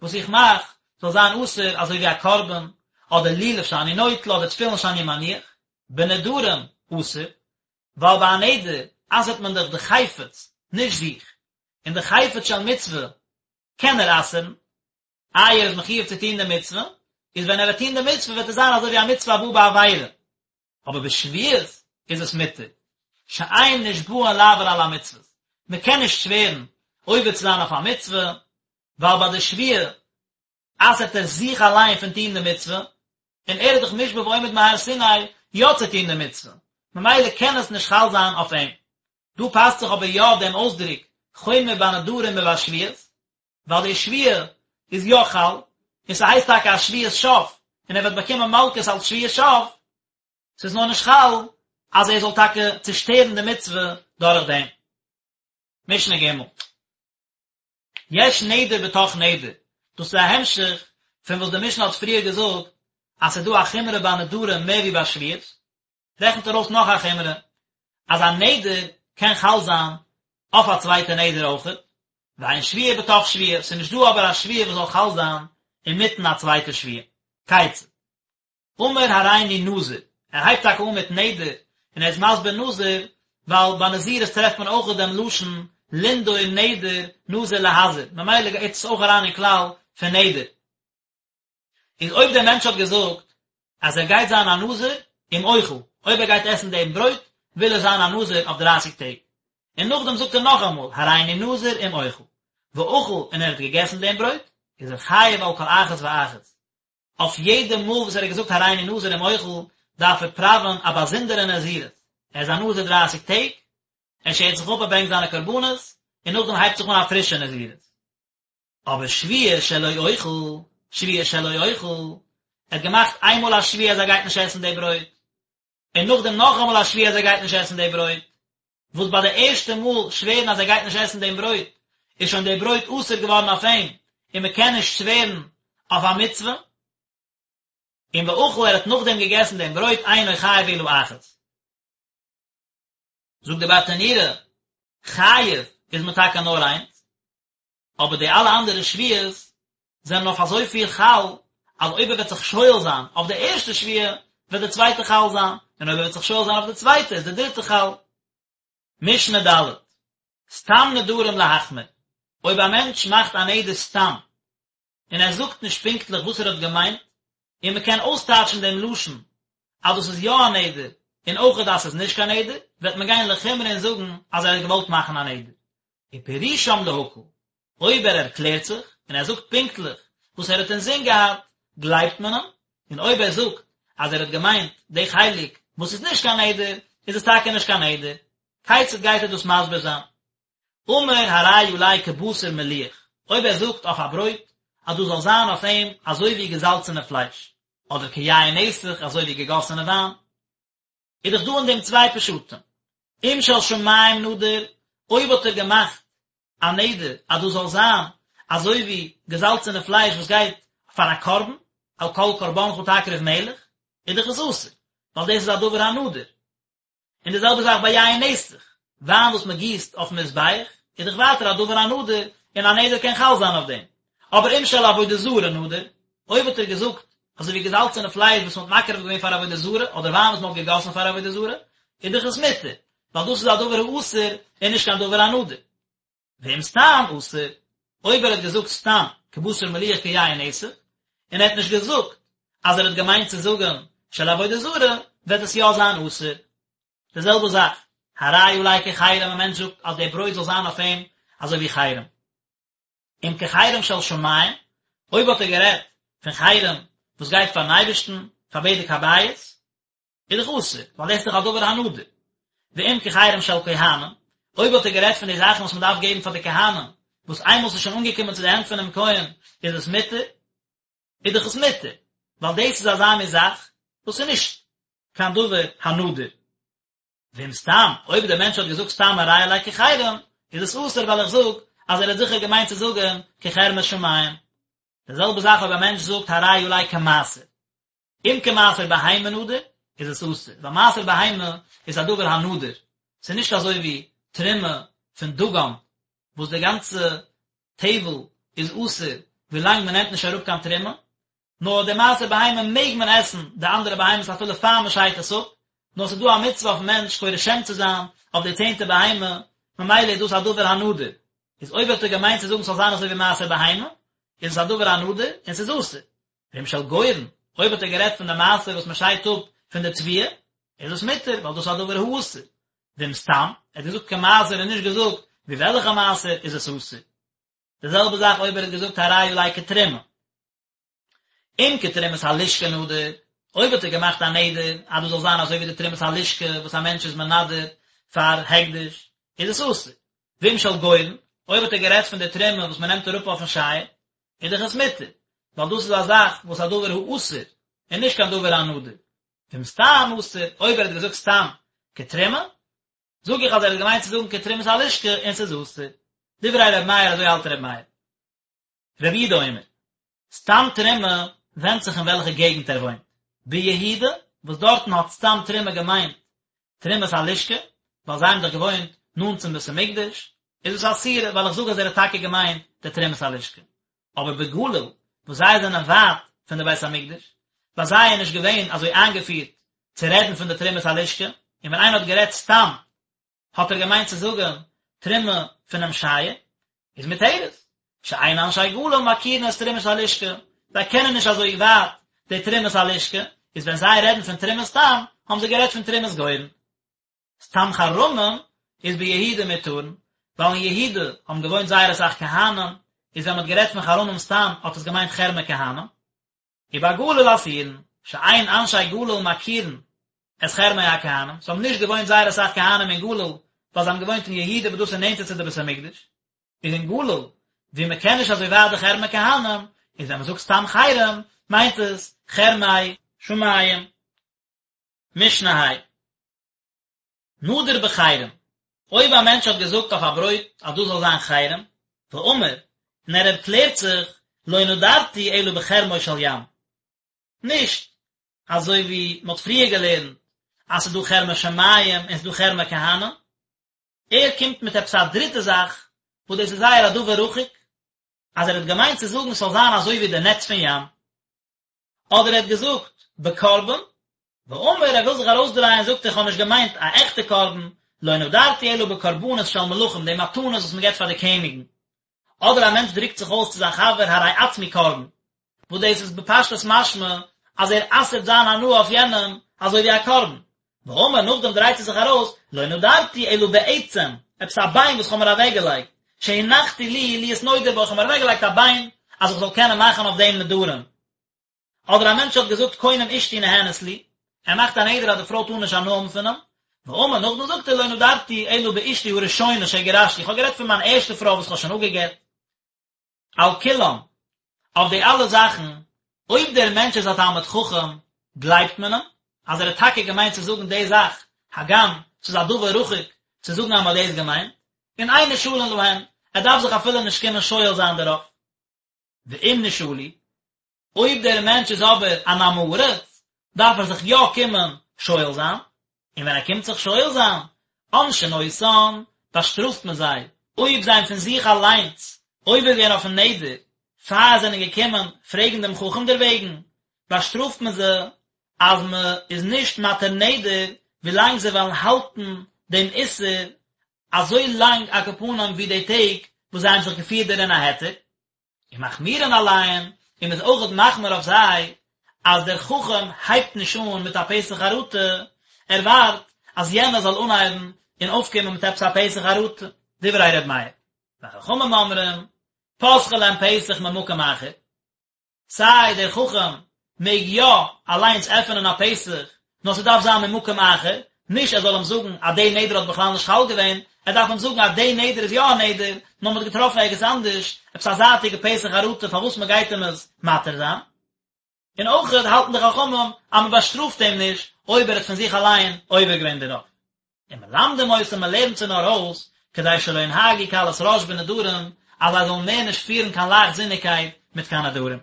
וואס איך מאך זאל זיין אסור אזוי ווי א קרבן, אדער לולב שאני נוטל אדער תפילין שאני מניח, בנדרים אסור, ווייל ביי א נדר אסר'ט מען דאך די חפץ, נישט זיך, און די חפץ של מצוה קען ער אסר'ן, איי ער איז מחיוב צו טון די מצוה, איז ווען ער וועט טון די מצוה וועט עס זיין אזוי ווי א מצוה הבאה בעבירה, אבער בשבועות איז עס מותר, שאין נשבעין לעבור על המצוות, מען קען נישט שווערן עובר צו זיין אויף א מצוה, ווייל ביי די שבועה אסר'ט ער זיך אליין פון טון די מצוה, און ער איז דאך מושבע ועומד מהר סיני יא צו טון די מצוה, ממילא קען עס נישט חל זיין אויף אים. דא פאסט זיך אבער יא דעם אויסדרוק חומר בנדרים מבשבועות, ווייל די שבועה איז יא חל, און ס'הייסט טאקע א שבועת שוא, און ער וועט באקומען מלקות אלס שבועת שוא, ס'איז נאר נישט חל אז ער זאל טאקע צושטערן די מצוה דורך דעם. משנה ג'. יש נדר בתוך נדר, דאס איז א המשך פון וואס די משנה האט פריער געזאגט אז ס'איז דא א חומרא ביי נדרים מער ווי ביי שבועות, רעכנט ער אויס נאך א חומרא, אז א נדר קען חל זיין אויף א צווייטע נדר אויכעט, ואין שבועה בתוך שבועה, ס'איז נישט דא אבער א שבועה וואס זאל חל זיין אינמיטן א צווייטע שבועה. כיצד? אמר הריני נזיר, ער הייבט טאקע אן מיט נדר, און ער איז מסביר נזיר, ווייל ביי נזירות טרעפט מען אויך דעם לשון לנדור נדר נזיר להזיר, ממילא גייט עס אויך אריין אין כלל פון נדר. איז אויב דער מענטש האט געזאגט אז ער גייט זיין א נזיר אם אוכל, אויב ער גייט עסן דעם ברויט וויל ער זיין א נזיר אויף דרייסיג טעג, און נאכדעם זאגט ער נאכאמאל הריני נזיר אם אוכל, ואכל און ער האט געגעסן דעם ברויט, איז ער חייב על כל אחת ואחת, אויף יעדע מאל וואס ער האט געזאגט הריני נזיר אם אוכל דארף ער פראווען א באזונדערע נזירות, ער איז א נזיר דרייסיג טעג, ער שערט זיך אפ ער ברענגט זיינע קרבנות, און נאכדעם הייבט זיך אן א פרישע נזירות. אבער שבועה שלא אוכל, שבועה שלא אוכל, ער האט געמאכט איינמאל א שבועה אז ער גייט נישט עסן די ברויט, און נאכדעם נאכאמאל א שבועה אז ער גייט נישט עסן די ברויט, וואס ביי די ערשטע מאל שווערן אז ער גייט נישט עסן דעם ברויט, איז שוין די ברויט אסור געווארן אויף אים, און מען קען נישט שווערן אויף א מצוה. און ואכל ער האט נאכדעם געגעסן דעם ברויט אינו חייב אלא אחת. זאגט די ברטנורא, חייב איז מען טאקע נאר איינס, אבער די אלע אנדערע שבועות זענען אויף אזויפיל חל, אז אויב ער וועט זיך שואל זיין אויף די ערשטע שבועה, וועט די צווייטע חל זיין, און אויב ער וועט זיך שואל זיין אויף די צווייטע, איז די דריטע חל. משנה ד', סתם נדרים להחמיר, אויב א מענטש מאכט א נדר סתם, און ער זאגט נישט פונקטליך וואס ער האט געמיינט, און מען קען אויסטייטשן דעם לשון אז דאס איז יא א נדר, און אויכעט אז ס'איז נישט קיין נדר, וועט מען גיין לחומרא און זאגן אז ער האט געוואלט מאכן א נדר. ופירושם להקל, אויב ער ערקלערט זיך, און ער זאגט פונקטליך וואס ער האט אינזין געהאט, גלייבט מען אים, און אויב ער זאגט אז ער האט געמיינט די חלק וואס איז נישט קיין נדר, איז עס טאקע נישט קיין נדר. כיצד גייט ער דאס מסביר זיין? אמר הרי עלי כבשר מליח, אויב ער זאגט אויף א ברויט אז דאס זאל זיין אויף אים אזוי ווי געזאלצענע פלייש, אדער כיין נסך אזוי ווי געגאסענע וויין, איז דאך דא אין דעם צוויי פשטים, אם של שמים נדר, אויב האט ער געמאכט א נדר אז דאס זאל זיין אזוי ווי געזאלצענע פלייש וואס גייט פאר א קרבן, על כל קרבנך תקריב מלח, איז דאך עס אסור, ווייל דאס איז א דבר הנדור. און די זעלבע זאך ביי יין נסך, וויין וואס מען גיסט אויפן מזבח, איז דאך ווייטער א דבר הנדור, און א נדר קען חל זיין אויף דעם. אבער אם של עבודה זרה נדר, אויב האט ער געזאגט, אזוי ווי געזאלצענע פלייש וואס מען האט מקריב געווען פאר עבודה זרה, אדער וויין וואס מען האט געגאסן פאר עבודה זרה, איז דאך עס מותר, ווייל דאס איז א דבר האסור און נישט קיין דבר הנדור. ואם סתם אסור, אויב ער האט געזאגט סתם כבשר מליח כיין נסך, און ער האט נישט געזאגט אז ער האט געמיינט צו זאגן של עבודה זרה, וועט עס יא זיין אסור. די זעלבע זאך, הרי עלי כחרם, א מענטש זאגט אז דער ברויט זאל זיין אויף אים אזוי ווי חרם. אם כחרם של שמים, אויב האט ער גערעדט פון חרם וואס גייט פארן אייבערשטן, פאר בדק הבית, איז דאך אסור, ווייל דאס איז דאך א דבר הנדור. ואם כחרם של כהנים, אויב האט ער גערעדט פון די זאכן וואס מען דארף געבן פאר די כהנים, וואס איינמאל ס'איז שוין אנגעקומען צו די הענט פונעם כהן איז עס מותר, איז דאך עס מותר, ווייל דאס איז אזא מין זאך וואס איז נישט קיין דבר הנדור. ואם סתם, אויב דער מענטש האט געזאגט סתם הרי עלי כחרם, איז עס אסור ווייל איך זאג אז ער האט זיכער געמיינט צו זאגן כחרמי שמים. די זעלבע זאך אויב א מענטש זאגט הרי עלי כמעשר. אם כמעשר בהמה נדר, איז עס אסור, ווייל מעשר בהמה איז א דבר הנדור, ס'איז נישט אזוי ווי תרומה פון דגן, וואס די גאנצע טבל איז אסור ווילאנג מען נעמט נישט אראפ קיין תרומה, נאר די מעשר בהמה מעג מען עסן די אנדערע בהמות אפילו פאר מען שיידט עס אפ, נאר ס'איז דא א מצוה אויפן מענטש קורא שם צו זיין אויף די צענטע בהמה, ממילא איז דאס א דבר הנדור, איז אויב האט ער געמיינט צו זאגן ס'זאל זיין אזוי ווי מעשר בהמה, איז עס א דבר הנדור און ס'איז אסור. ואם של גורן, אויב האט ער גערעדט פון די מעשר וואס מען שיידט אפ פון די תבואה, איז עס מותר, ווייל דאס איז א דבר האסור. ואם סתם, ער האט געזאגט כמעשר און נישט געזאגט ווי וועלכע מעשר, איז עס אסור. די זעלבע זאך אויב ער האט געזאגט הרי עלי כתרומה. אם כתרומת הלשכה נדר, אויב האט ער געמאכט א נדר אז דאס זאל זיין אזוי ווי די תרומת הלשכה וואס א מענטש איז מנדר פאר הקדש, איז עס אסור. ואם של גורן, אויב האט ער גערעדט פון די תרומה וואס מען נעמט אראפ אויפן שייער, איז דאך עס מותר, ווייל דאס איז א זאך וואס א דבר האסור, און נישט קיין דבר הנדור. ואם סתם אסור, אויב ער האט געזאגט סתם כתרומה, זאג איך אז ער האט געמיינט צו זאגן כתרומת הלשכה און ס'איז אסור. דברי ר' מאיר אזוי האלט ר' מאיר. רבי יהודה אומר, סתם תרומה ווענדט זיך אין וועלכע געגנט ער וואוינט. ביהודה, וואס דארטן האט סתם תרומה געמיינט תרומת הלשכה, ווייל זיי האבן דאך געוואוינט נאנט צום בית המקדש, איז עס א סתירה, ווייל איך זאג אז ער האט טאקע געמיינט די תרומת הלשכה. אבער בגליל, וואס זיי זענען ווייט פון די בית המקדש, ביי זיי איז נישט געווען אזוי איינגעפירט צו רעדן פון די תרומת הלשכה, און ווען איינער האט גערעדט סתם האט ער געמיינט צו זאגן תרומה פונעם שייער, איז מותרת, שאין אנשי גליל מכירין את תרומת הלשכה, זיי קענען נישט אזוי ווייט די תרומת הלשכה, איז ווען זיי רעדן פון תרומה סתם, האבן זיי גערעדט פון תרומת גורן. סתם חרמים איז ביהודה מותרין, ווייל אין יהודה האבן געוואוינט זייער אסאך כהנים, איז ווען מען האט גערעדט פון חרמים סתם האט עס געמיינט חרמי כהנים. ובגליל אסורין, שאין אנשי גליל מכירין את חרמי הכהנים, ס'האבן נישט געוואוינט זייער אסאך כהנים אין גליל, ווייל זיי האבן געוואוינט אין יהודה וואס דאס איז נענטער צו די בית המקדש, איז אין גליל ווי מען קען נישט אזוי ווייט די חרמי כהנים, איז ווען מען זאגט סתם חרם מיינט עס חרמי שמים. משנה ה'. נדר בחרם, אויב א מענטש האט געזאגט אויף א ברויט אז דאס זאל זיין חרם, ואמר, און ער ערקלערט זיך, לא נדרתי אלא בחרמו של ים. נישט אזוי ווי מען האט פריער געלערנט אז ס'איז דא חרמי שמים און ס'איז דא חרמי כהנים. ער קומט מיט עפעס א דריטע זאך וואס דאס איז זייער א דבר רחוק, אז ער האט געמיינט צו זאגן ס'זאל זיין אזוי ווי די נעץ פון ים. אדער ער האט געזאגט בקרבן, ואמר ער וויל זיך ארויסדרייען זאגט ער איך האב נישט געמיינט א עכטע קרבן, לא נדרתי אלא בקרבנות של מלכים די מתנות וואס מען געבט פאר די קעניגן, אדער א מענטש דרוקט זיך אויס צו זיין חבר הרי עצמי קרבן, וואס דאס איז בפשטות משמע אז ער אסר'ט זיין הנאה אויף יענעם אזוי ווי א קרבן, ואמר נאכדעם דרייט ער זיך ארויס, לא נדרתי אלא בעצם, עפעס א ביין וואס כ'האב מיר אוועקגעלייגט, שהנחתי לי להיות נודר בו, כ'האב מיר אוועקגעלייגט א ביין אז איך זאל קענען מאכן אויף דעם נדרים. אדער א מענטש האט געזאגט קונם אשתי נהנית לי, ער מאכט א נדר אז די פרוי טאר נישט הנאה האבן פון אים, ואמר נאכדעם זאגט ער לא נדרתי אלא באשתי הראשונה שגירשתי, איך האב גערעדט פון מיין ערשטע פרוי וואס כ'האב שוין אפגע'גט. על כולם, אויף די אלע זאכן, אויב דער מענטש איז א תלמיד חכם, גלייבט מען אים, אז ער האט טאקע געמיינט צו זאגן די זאך, הגם ס'איז א דבר רחוק צו זאגן אז מ'האט דאס געמיינט, און אין נשאלין להן, ער דארף זיך אפילו נישט קומען שואל זיין דערויף. ואם נשאלו, אויב דער מענטש איז אבער אן עם הארץ, דארף ער זיך יא קומען שואל זיין, און ווען ער קומט זיך שואל זיין, עונשין אותן, באשטראפט מען זיי, אויב זיי האבן פון זיך אליינס עובר געווען אויפן נדר, פאר זיי זענען געקומען פרעגן דעם חכם דערוועגן, באשטראפט מען זיי אז מען איז נישט מתיר נדר ווילאנג זיי וועלן האלטן דעם איסור אזוי לאנג על כל פנים ווי די טעג וואס זיי האבן זיך געפירט דערין א היתר. ומחמירין עליהן, און מ'איז אויכעט מחמיר אויף זיי, אז דער חכם הייבט נישט אן מיט א פתח חרטה, ער ווארט אז יענער זאל אנהייבן און אויפקומען מיט עפעס א פתח חרטה, דברי ר' מאיר. וחכמים אומרים, פותחין להם פתח ממקום אחר, סיי דער חכם מעג יא אליינס עפענען א פתח, נאר ס'דארף זיין ממקום אחר, נישט ער זאל אים זאגן אז די נדר האט בכלל נישט חל געווען, ער דארף אים זאגן אז די נדר איז יא א נדר, נאר מ'האט געטראפן ערגעץ אנדערש עפעס א זייטיגע פתח חרטה פארוואס מ'גייט אים עס מתיר זיין. און אויכעט האלטן די חכמים אז מ'באשטראפט אים נישט אויב ער האט פון זיך אליין עובר געווען דערויף. ומלמדים אותם מ'לערנט זיי נאר אויס, כדי שלא ינהגו קלות ראש בנדרים, אז זיי זאלן מער נישט פירן קיין לייכטזיניגקייט מיט קיין נדרים.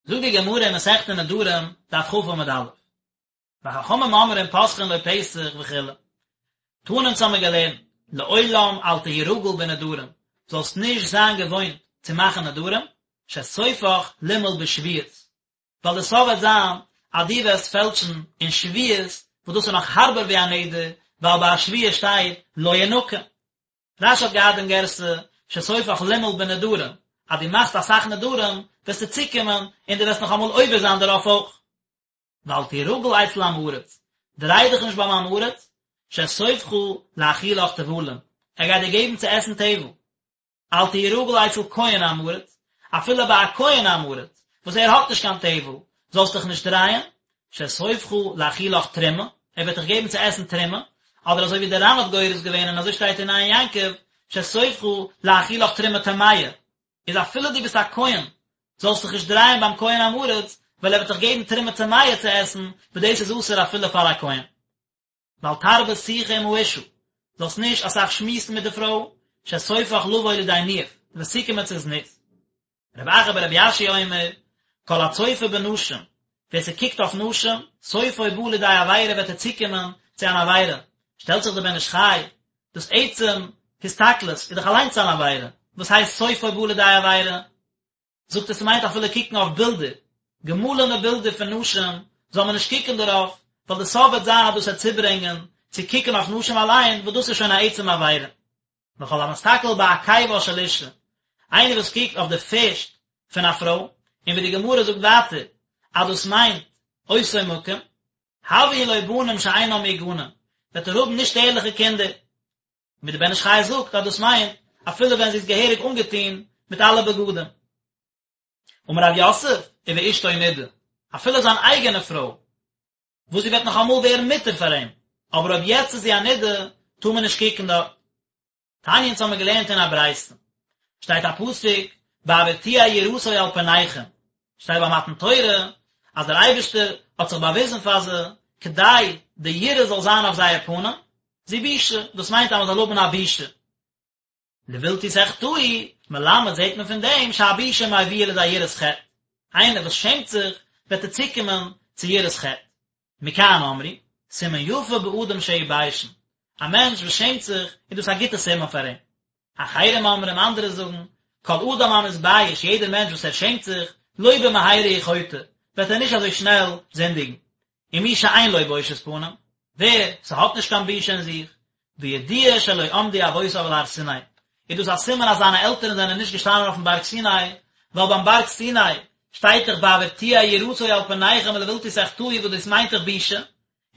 זאגט די גמרא אין מסכת נדרים, דף כ עמוד א', וחכמים אומרים פותחין לו פתח וכו', תנא אונז האמיר געלערנט, לעולם אל תהי רגיל בנדרים, זאלסט נישט זיין געוואוינט צו מאכן נדרים, שסופך למעול בשבועות, ווייל די סוף וועט זיין אז דו וועסט פעלטשן אין שבועות, וואס דאס איז נאך הארבער ווי א נדר, ווייל ביי א שבועה שטייט לא ינקה. רש"י האט געהאט דעם גירסא שסופך למעול בנדרים, אז דו מאכסט אסאך נדרים וועסטו צוקומען און דו וועסט נאך אמאל עובר זיין דערויף אויך. ואל תהי רגיל אצל עם הארץ, דריי דיך נישט ביים עם הארץ, שסופך להאכילך טבלים, ער גייט דיר געבן צו עסן טבל. אל תהי רגיל אצל כהן עם הארץ, אפילו ביי א כהן עם הארץ, וואס ער האט נישט קיין טבל, זאלסט דיך נישט דרייען, שסופך להאכילך תרומה, ער וועט דיך געבן צו עסן תרומה, אדער אזוי ווי דער ר"ן האט גורס געווען און אזוי שטייט אין עין יעקב, שסופך להאכילך תרומה טמאה, איז אפילו דו ביסט א כהן, זאלסט דיך נישט דרייען ביים כהן עם הארץ, ווייל ער וועט דיך געבן תרומה טמאה צו עסן, וואס דאס איז אסור אפילו פאר א כהן. ואל תרבה שיחה עם האשה, זאלסט נישט אסאך שמועסן מיט די פרוי, שסופך לבוא לידי ניאוף, דו וועסט צוקומען צו זנות. רב אחא ברבי יאשיה אומר, כל הצופה בנשים, ווער ס'קוקט אויף נשים, סופו בא לידי עבירה וועט ער צוקומען. צו אן עבירה, שטעלט זיך דער בן איש חי, דאס עצם הסתכלות איז דאך אליינס אן עבירה, וואס הייסט סופו בא לידי עבירה? זאגט ער ס'מיינט אפילו קוקן אויף בילדער, געמאלענע בילדער פון נשים, זאל מען נישט קוקן דערויף, ווייל די סוף וועט זיין אז דאס וועט צוברענגען צו קוקן אויף נשים אליין, וואס דאס איז שוין א עצם עבירה. וכל המסתכל בעקיבה של אישה, איינער וואס קוקט אויף די פערשט פון א פרוי, און ווי די גמרא זאגט ווייטער אז דאס מיינט אותו מקום, הויין לו בנים שאינם מהוגנים, וועט ער האבן נישט ערליכע קינדער. ווי די בן איש חי זאגט אז דאס מיינט אפילו ווען זי איז געהעריג אנגעטון מיט אלע בגדים. אמר רב יוסף, ובאשתו נידה, אפילו זיין אייגענע פרוי, וואס זי וועט נאך אמאל ווערן מותר פאר אים, אבער אויב יעצט איז זי א נידה, טאר מען נישט קוקן דארט. תניא אונז האמיר געלערנט אין א ברייתא, שטייט א פסוק, בעבור תהיה יראתו על פניכם, שטייט ביי מתן תורה אז דער אייבערשטער האט זיך באוויזן פאר זיי כדי די יראה זאל זיין אויף זייער פנים, זו בושה, דאס מיינט אז מען זאל האבן א בושה. לבלתי תחטאו, מלמד זעט מען פון דעם שהבושה מביאה לידי יראת חטא, איינער וואס שעמט זיך וועט ער צוקומען צו יראת חטא. מכאן אמרו, סימן יפה באדם שהוא ביישן, א מענטש וואס שעמט זיך איז דאס א גוטע סימן פאר אים. אחרים אומרים, אנדערע זאגן, כל אדם המתבייש, יעדער מענטש וואס ער שעמט זיך, לא במהרה הוא חוטא, וועט ער נישט אזוי שנעל זינדיגן. ומי שאין לו בושת פנים, ווער ס'האט נישט קיין בושה אין זיך, בידוע שלא עמדו אבותיו על הר סיני, איז דאס א סימן אז זיינע עלטערן זענען נישט געשטאנען אויפן בארג סיני, ווייל ביים בארג סיני שטייט דאך בעבור תהיה יראתו על פניכם ולבלתי תחטאו וואס דאס מיינט דאך בושה,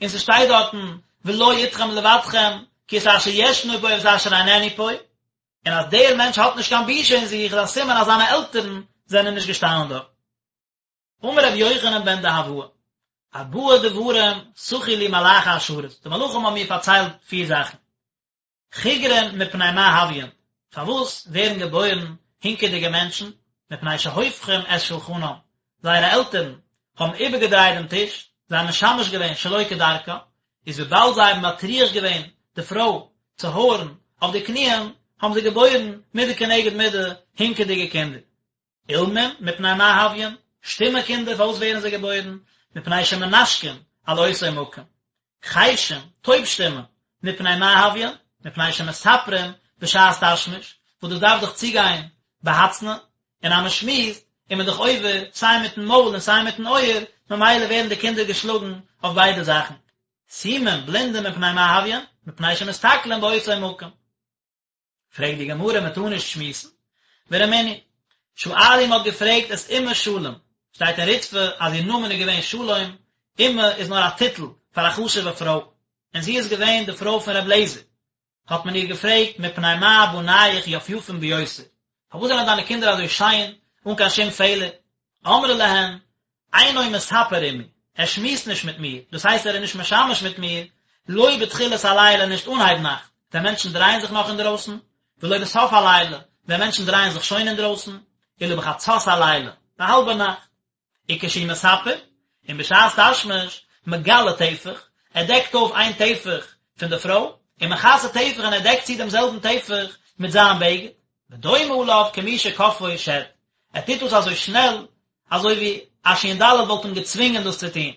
און ס'שטייט דארטן ולא אתכם לבדכם כי את אשר ישנו פה ואת אשר איננו פה, און אז דער מענטש האט נישט קיין בושה אין זיך איז א סימן אז זיינע עלטערן זענען נישט געשטאנען דארט. אמר רבי יוחנן בן דהבאי, ארבעה דברים סחו לי מלאכי השרת, די מלאכים האבן מיר פארציילט פיר זאכן. חיגרין מפני מה הויין, פארוואס ווערן געבוירן הינקעדיגע מענטשן, מפני שהופכים את שולחנם, זייערע עלטערן האבן איבערגעדרייט דעם טיש, זיי האבן משמש געווען שלא כדרכה, איז וויבאלד זיי האבן מטריח געווען די פרוי צו הויערן אויף די קניען, האבן זיי געבוירן מידה כנגד מידה הינקעדיגע קינדער. אילמים, מפני מה הויין, שטומע קינדער פארוואס ווערן זיי געבוירן? מפני שמנשקין על אותו מקום. חרשים, טויב שטימע, מפני מה הויין? מפני שמספרים בשעת תשמיש, וואס דאס דארף דאך צוגיין בהצנעה, און אז מען שמועסט איז מען דאך עובר סיי מיטן מויל און סיי מיטן אויער, ממילא ווערן די קינדער געשלאגן אויף ביידע זאכן. סומים, בלינדע, מפני מה הויין? מפני שמסתכלין באותו מקום. פרעגט די גמרא מען טאר נישט שמועסן? ורמינהי, שאלו מ'האט געפרעגט את אימא שלום, שטייט אין ריטב"א אז איר נאמען איז געווען שלום, אימא איז נאר א טיטל פאר א חשוב'ע פרוי, און זי איז געווען די פרוי פון ר' לעזער, האט מען איר געפרעגט מפני מה בנייך יפיפין ביותר, פארוואס זענען דיינע קינדער אזוי שיין אן קיין שום פעלער? אמרה להן, אינו מספר עמי, ער שמועסט נישט מיט מיר, דאס הייסט ער איז נישט משמש מיט מיר, לא בתחילת הלילה נישט אנהייב נאכט, ווען מענטשן דרייען זיך נאך אינדרויסן, ולא בסוף הלילה, ווען מענטשן דרייען זיך שוין אינדרויסן, אלא בחצות הלילה, ביי האלבע נאכט. וכשהוא מספר, און בשעת תשמיש, מגלה טפח, ער דעקט אויף איין טפח פון די פרוי, ומכסה טפח און ער דעקט צו דעם זעלבן טפח מיט זיין בגד, ודומה עליו כמי שכפאו שד, ער טוט דאס אזוי שנעל, אזוי ווי א שין ד' וואלט אים געצווינגען דאס צו טון.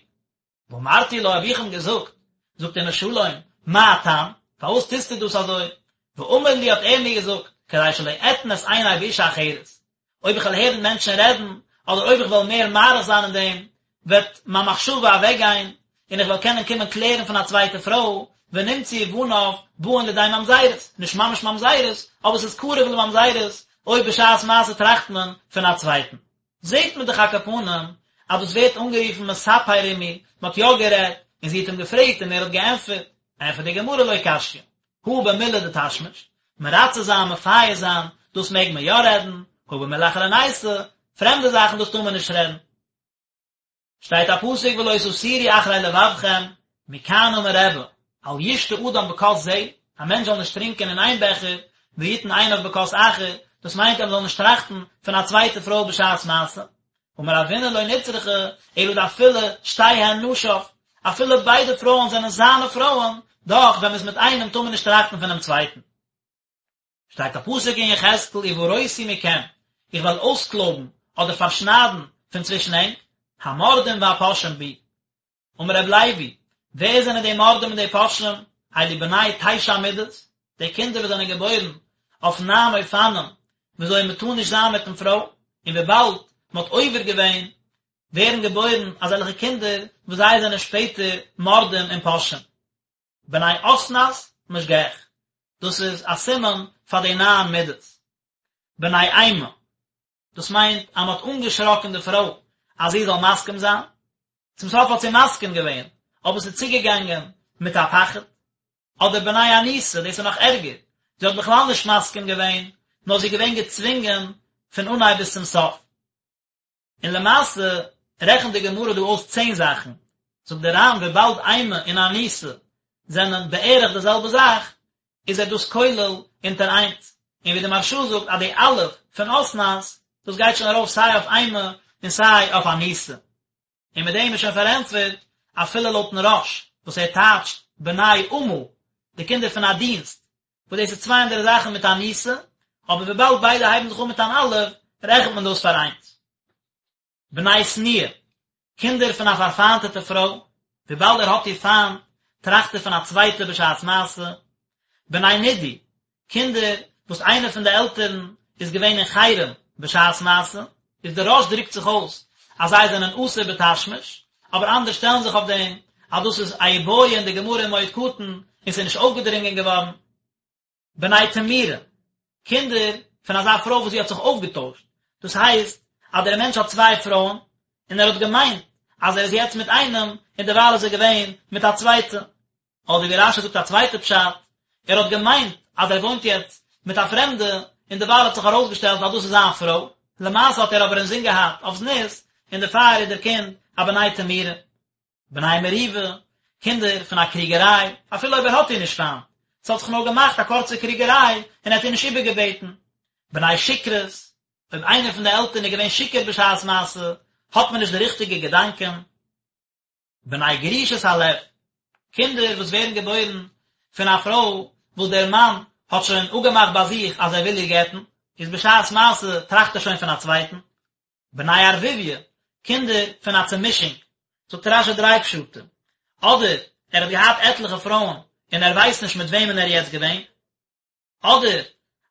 ואמרתי לו, האב איך אים געזאגט, זאגט אימא שלום, מה הטעם, פארוואס טוסטו דאס אזוי? ואמר לי, האט ער מיר געזאגט, כדי שלא אתן את עיני באשה אחרת, אויב איך וועל הערן מענטשן רעדן, אדער אויב איך וועל מער מאריך זיין אין דעם, וועט מיין מחשבה אוועקגיין, און איך וועל קענען קומען קלערן פון א צווייטע פרוי, ונמצאו בניו באין לידי ממזרות, נישט ממש ממזרות, אבער ס'איז קרוב לממזרות, אויב בשעת מעשה טראכט מען פון א צווייטן. זעט מען דאך על כל פנים אז דאס ווערט אנגערופן מספר עמי, מען האט יא גערעדט, און זי האט אים געפרעגט און ער האט געענטפערט. ענטפערט די גמרא לא קשיא, הא במילי דתשמיש, מרצה זיין מפייס זיין, דאס מעג מען יא רעדן, הא במילי אחרנייתא, פרעמדע זאכן דאס טאר מען נישט רעדן. שטייט א פסוק ולא תתורו אחרי לבבכם, מכאן אמר רבי, אל ישתה אדם בכוס זה, א מענטש זאל נישט טרינקען אין איין בעכער, ויתן עיניו בכוס אחר, דאס מיינט אז מען זאל נישט טראכטן פון א צווייטע פרוי בשעת מעשה. אמר רבינא לא נצרכה, אלא דאפילו שתיהן נשיו, אפילו ביידע פרויען זענען זיינע פרויען, דאך ווען מען איז מיט איינעם טאר מען נישט טראכטן פונעם צווייטן. שטייט א פסוק אין יחזקאל וברותי מכם, איך וועל אויסקלויבן אדער פארשניידן פון צווישן ענק, המורדים והפושעים בי. אמר רב לוי, ווער זענען די מורדים און די פושעים? אלו בני תשע מידות, די קינדער וואס זענען געבוירן אויף ניין אופנים וויאזוי מען טאר נישט זיין מיטן פרוי, און וויבאלד מען האט עובר געווען, ווערן געבוירן אזעלכע קינדער וואס זיי זענען שפעטער מורדים און פושעים. בני אסנת משגח, דאס איז א סימן פאר די ניין מידות. בני אימה, דאס מיינט אז מען האט אנגעשראקן די פרוי אז זי זאל מסכים זיין, צום סוף האט זי מסכים געווען, אבער ס'איז צוגעגאנגען מיט א פחד. אדער בני אנוסה, דאס איז נאך ערגער, זי האט בכלל נישט מסכים געווען, נאר זי איז געווען געצווינגען פון אנהייב ביז צום סוף. און למעשה רעכנט די גמרא דא אויס צען זאכן, זאגט דער ר"ן וויבאלד אימה און אנוסה זענען בערך די זעלבע זאך, איז ער דאס כולל אונטער איינס, און ווי די מהרש"א זאגט אז די א' פון אסנת, דאס גייט שוין ארויף סיי אויף אימה און סיי אויף אנוסה. און מיט דעם איז שוין פארענטפערט אפילו לויטן רא"ש וואס ער טייטשט בני אמה, די קינדער פון א דינסט, וואס דאס איז צוויי אנדערע זאכן מיט אנוסה, אבער וויבאלד ביידע הייבן זיך אן מיט אן אלף, רעכנט מען דאס פאר איינס. בני שנואה, קינדער פון א פארפיינטעטע פרוי, וויבאלד ער האט איר פיינט, טראכט ער פון א צווייטע בשעת מעשה. בני נידוי, קינדער וואס איינער פון די עלטערן איז געווען אין חרם בשעת מעשה, איז דער רא"ש דרוקט זיך אויס אז זיי זענען אסור בתשמיש, אבער אנדערע שטעלן זיך אויף דעם אז דאס איז א איבעיא אין די גמרא אין מועד קטן און ס'איז נישט אויפגעדרינגען געווארן. בני תמורה, קינדער פון אזא פרוי וואס זי האט זיך אויפגעטוישט, דאס הייסט אז דער מענטש האט צוויי פרויען און ער האט געמיינט אז ער איז יעצט מיט איינעם און דערווייל איז ער געווען מיט א צווייטע, אדער ווי רש"י זאגט א צווייטע פשט, ער האט געמיינט אז ער וואוינט יעצט מיט א פרעמדע, און דערווייל האט זיך ארויסגעשטעלט אז דאס איז זיין פרוי, למעשה האט ער אבער אינזין געהאט אויף זנות, און דערפאר איז דער קינד א בני תמורה. בני מריבה, קינדער פון א קריגעריי, אפילו אויב ער האט איר נישט פיינט, ס'האט זיך נאר געמאכט א קורצע קריגעריי און ער האט איר נישט איבערגעבעטן. בני שכרות, אויב איינער פון די עלטערן איז געווען שיכור בשעת מעשה, האט מען נישט די ריכטיגע געדאנקען. בני גרושת הלב, קינדער וואס ווערן געבוירן פון א פרוי וואס דער מאן האט שוין אפגעמאכט ביי זיך אז ער וויל איר גט'ן, איז בשעת מעשה טראכט ער שוין פון א צווייטן. בני ערבוביא, קינדער פון א צומישונג, זאגט רש"י דריי פשטים, אדער ער האט געהאט עטליכע פרויען און ער ווייסט נישט מיט וועמען ער איז יעצט געווען, אדער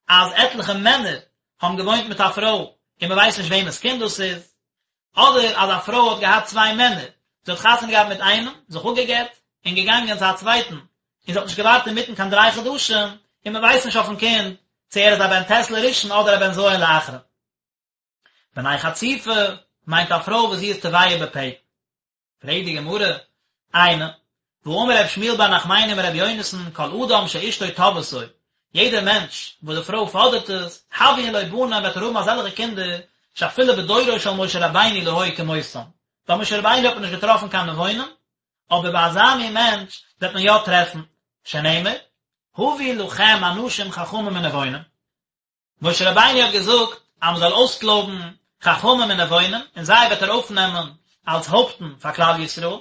אז עטליכע מענער האבן געוואוינט מיט א פרוי און מען ווייסט נישט וועמענס קינד דאס איז, אדער אז א פרוי האט געהאט צוויי מענער, זי האט חתונה געהאט מיט איינעם, זיך אפגעגט, און געגאנגען צו א צווייטן, און זי האט נישט געווארט אינמיטן קיין דריי חדשים, און מען ווייסט נישט אויפן קינד צו ער איז א בן ט' לראשון אדער א בן ז' לאחרון. בני חצופה מיינט א פרוי וואס זי איז תובע בפה. פרעגט די גמרא, איני, והאמר רב שמואל בר נחמני אמר רבי יונתן, כל אדם שאשתו תובעתו, יעדער מענטש וואס די פרוי פאדערט עס, הויין לו בנים וועט ער האבן אזעלכע קינדער, שאפילו בדורו של משה רבינו לא היו כמותם, ביי משה רבינו האט מען נישט געטראפן קיין נבונים, אבער ביי אזא מין מענטש וועט מען יא טרעפן, שנאמר, הבו לכם אנשים חכמים ונבונים, משה רבינו האט געזאגט אז מען זאל אויסקלויבן חכמים און נבונים און זיי וועט ער אויפנעמען אלס הויפטן פאר כלל ישראל,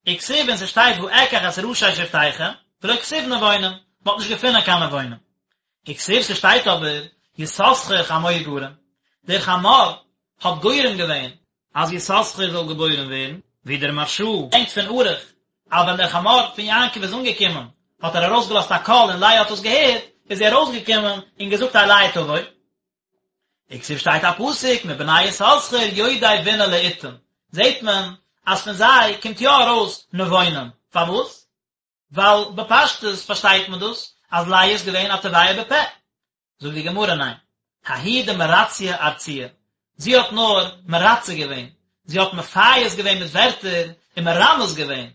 וכתיב און ס'שטייט ואקח את ראשי שבטיכם, ולא כתיב נבונים, מען האט נישט געפונען קיין נבונים. וכתיב ס'שטייט אבער יששכר חמור גרם, דער חמור האט גורם געווען אז יששכר זאל געבוירן ווערן, ווי דער מהרש"א ברענגט פון ערוך, אז ווען דער חמור פון יעקב איז אנגעקומען, האט ער ארויסגעלאזט א קול און לאה האט עס געהערט, איז זי ארויסגעקומען און געזאגט אלי תבוא. וכתיב שטייט א פסוק מבני יששכר יודעי בינה לעתים, זעט מען אז פון זיי קומט יא ארויס נבונים, פארוואס? ווייל בפשטות פארשטייט מען דאס אז לאה איז געווען א תובע בפה. זאגט די גמרא ניין, ההיא דמרציא ארצויי, זי האט נאר מרצה געווען, זי האט מפייס געווען מיט ווערטער און מרמז געווען,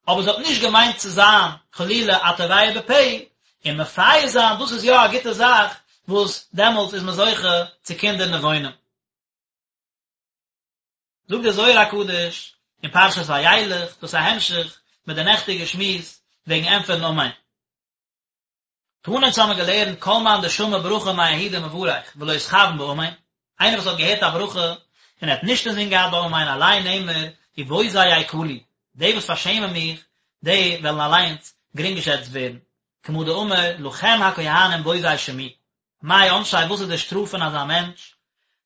אבער זי האט נישט געמיינט צו זיין חלילה א תובע בפה, און מפייס זיין דאס איז יא א גוטע זאך וואס דעמאלטס איז מען זוכה צו קינדער נבונים. זאגט דער זוהר הקדוש אין פרשת וילך, דאס איז א המשך מיט די נעכטיגע שמועס וועגן ענטפערן אמן. תנא אונז האמיר געלערנט כל מאן דשמע ברכה מההוא דמברך ולא אתכוין באמן, איינער וואס האט געהערט א ברכה און ער האט נישט אינזין געהאט ביי אמן עליה נאמר ובוזי יקלו, די וואס פארשעמען מיך, די וועלן אליינס גרינגעשעצט ווערן, כמה דאמר לכם הכהנים בוזי שמי, מאי עונשיה וואס איז די שטראף פון אזא מענטש?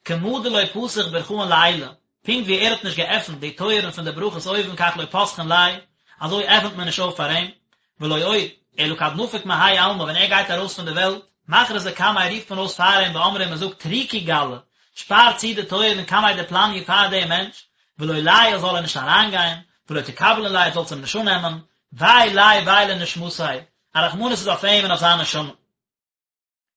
כמה דלא פתח ברכאן לעילא, פונקט ווי ער האט נישט געעפנט די טויערן פון די ברכות אויבן כך לא פתחין ליה, אזוי עפנט מען נישט אויף פאר אים, ולא עוד, אלא כד נפיק מהאי עלמא ווען ער גייט ארויס פון די וועלט, מכרזי קמיה רופט מען אויס פאר אים ואמרי און מען זאגט טריקו גלא, שפאר צו די טויערן קמיה דפלני פאר דעם מענטש, ולא ליעול זאל ער נישט אריינגיין, ולא תקבלון ליה זאלטס אים נישט אננעמען, וויי ליה וויי לנשמתיה, א רחמנות איז אויף אים און אויף זיין נשמה.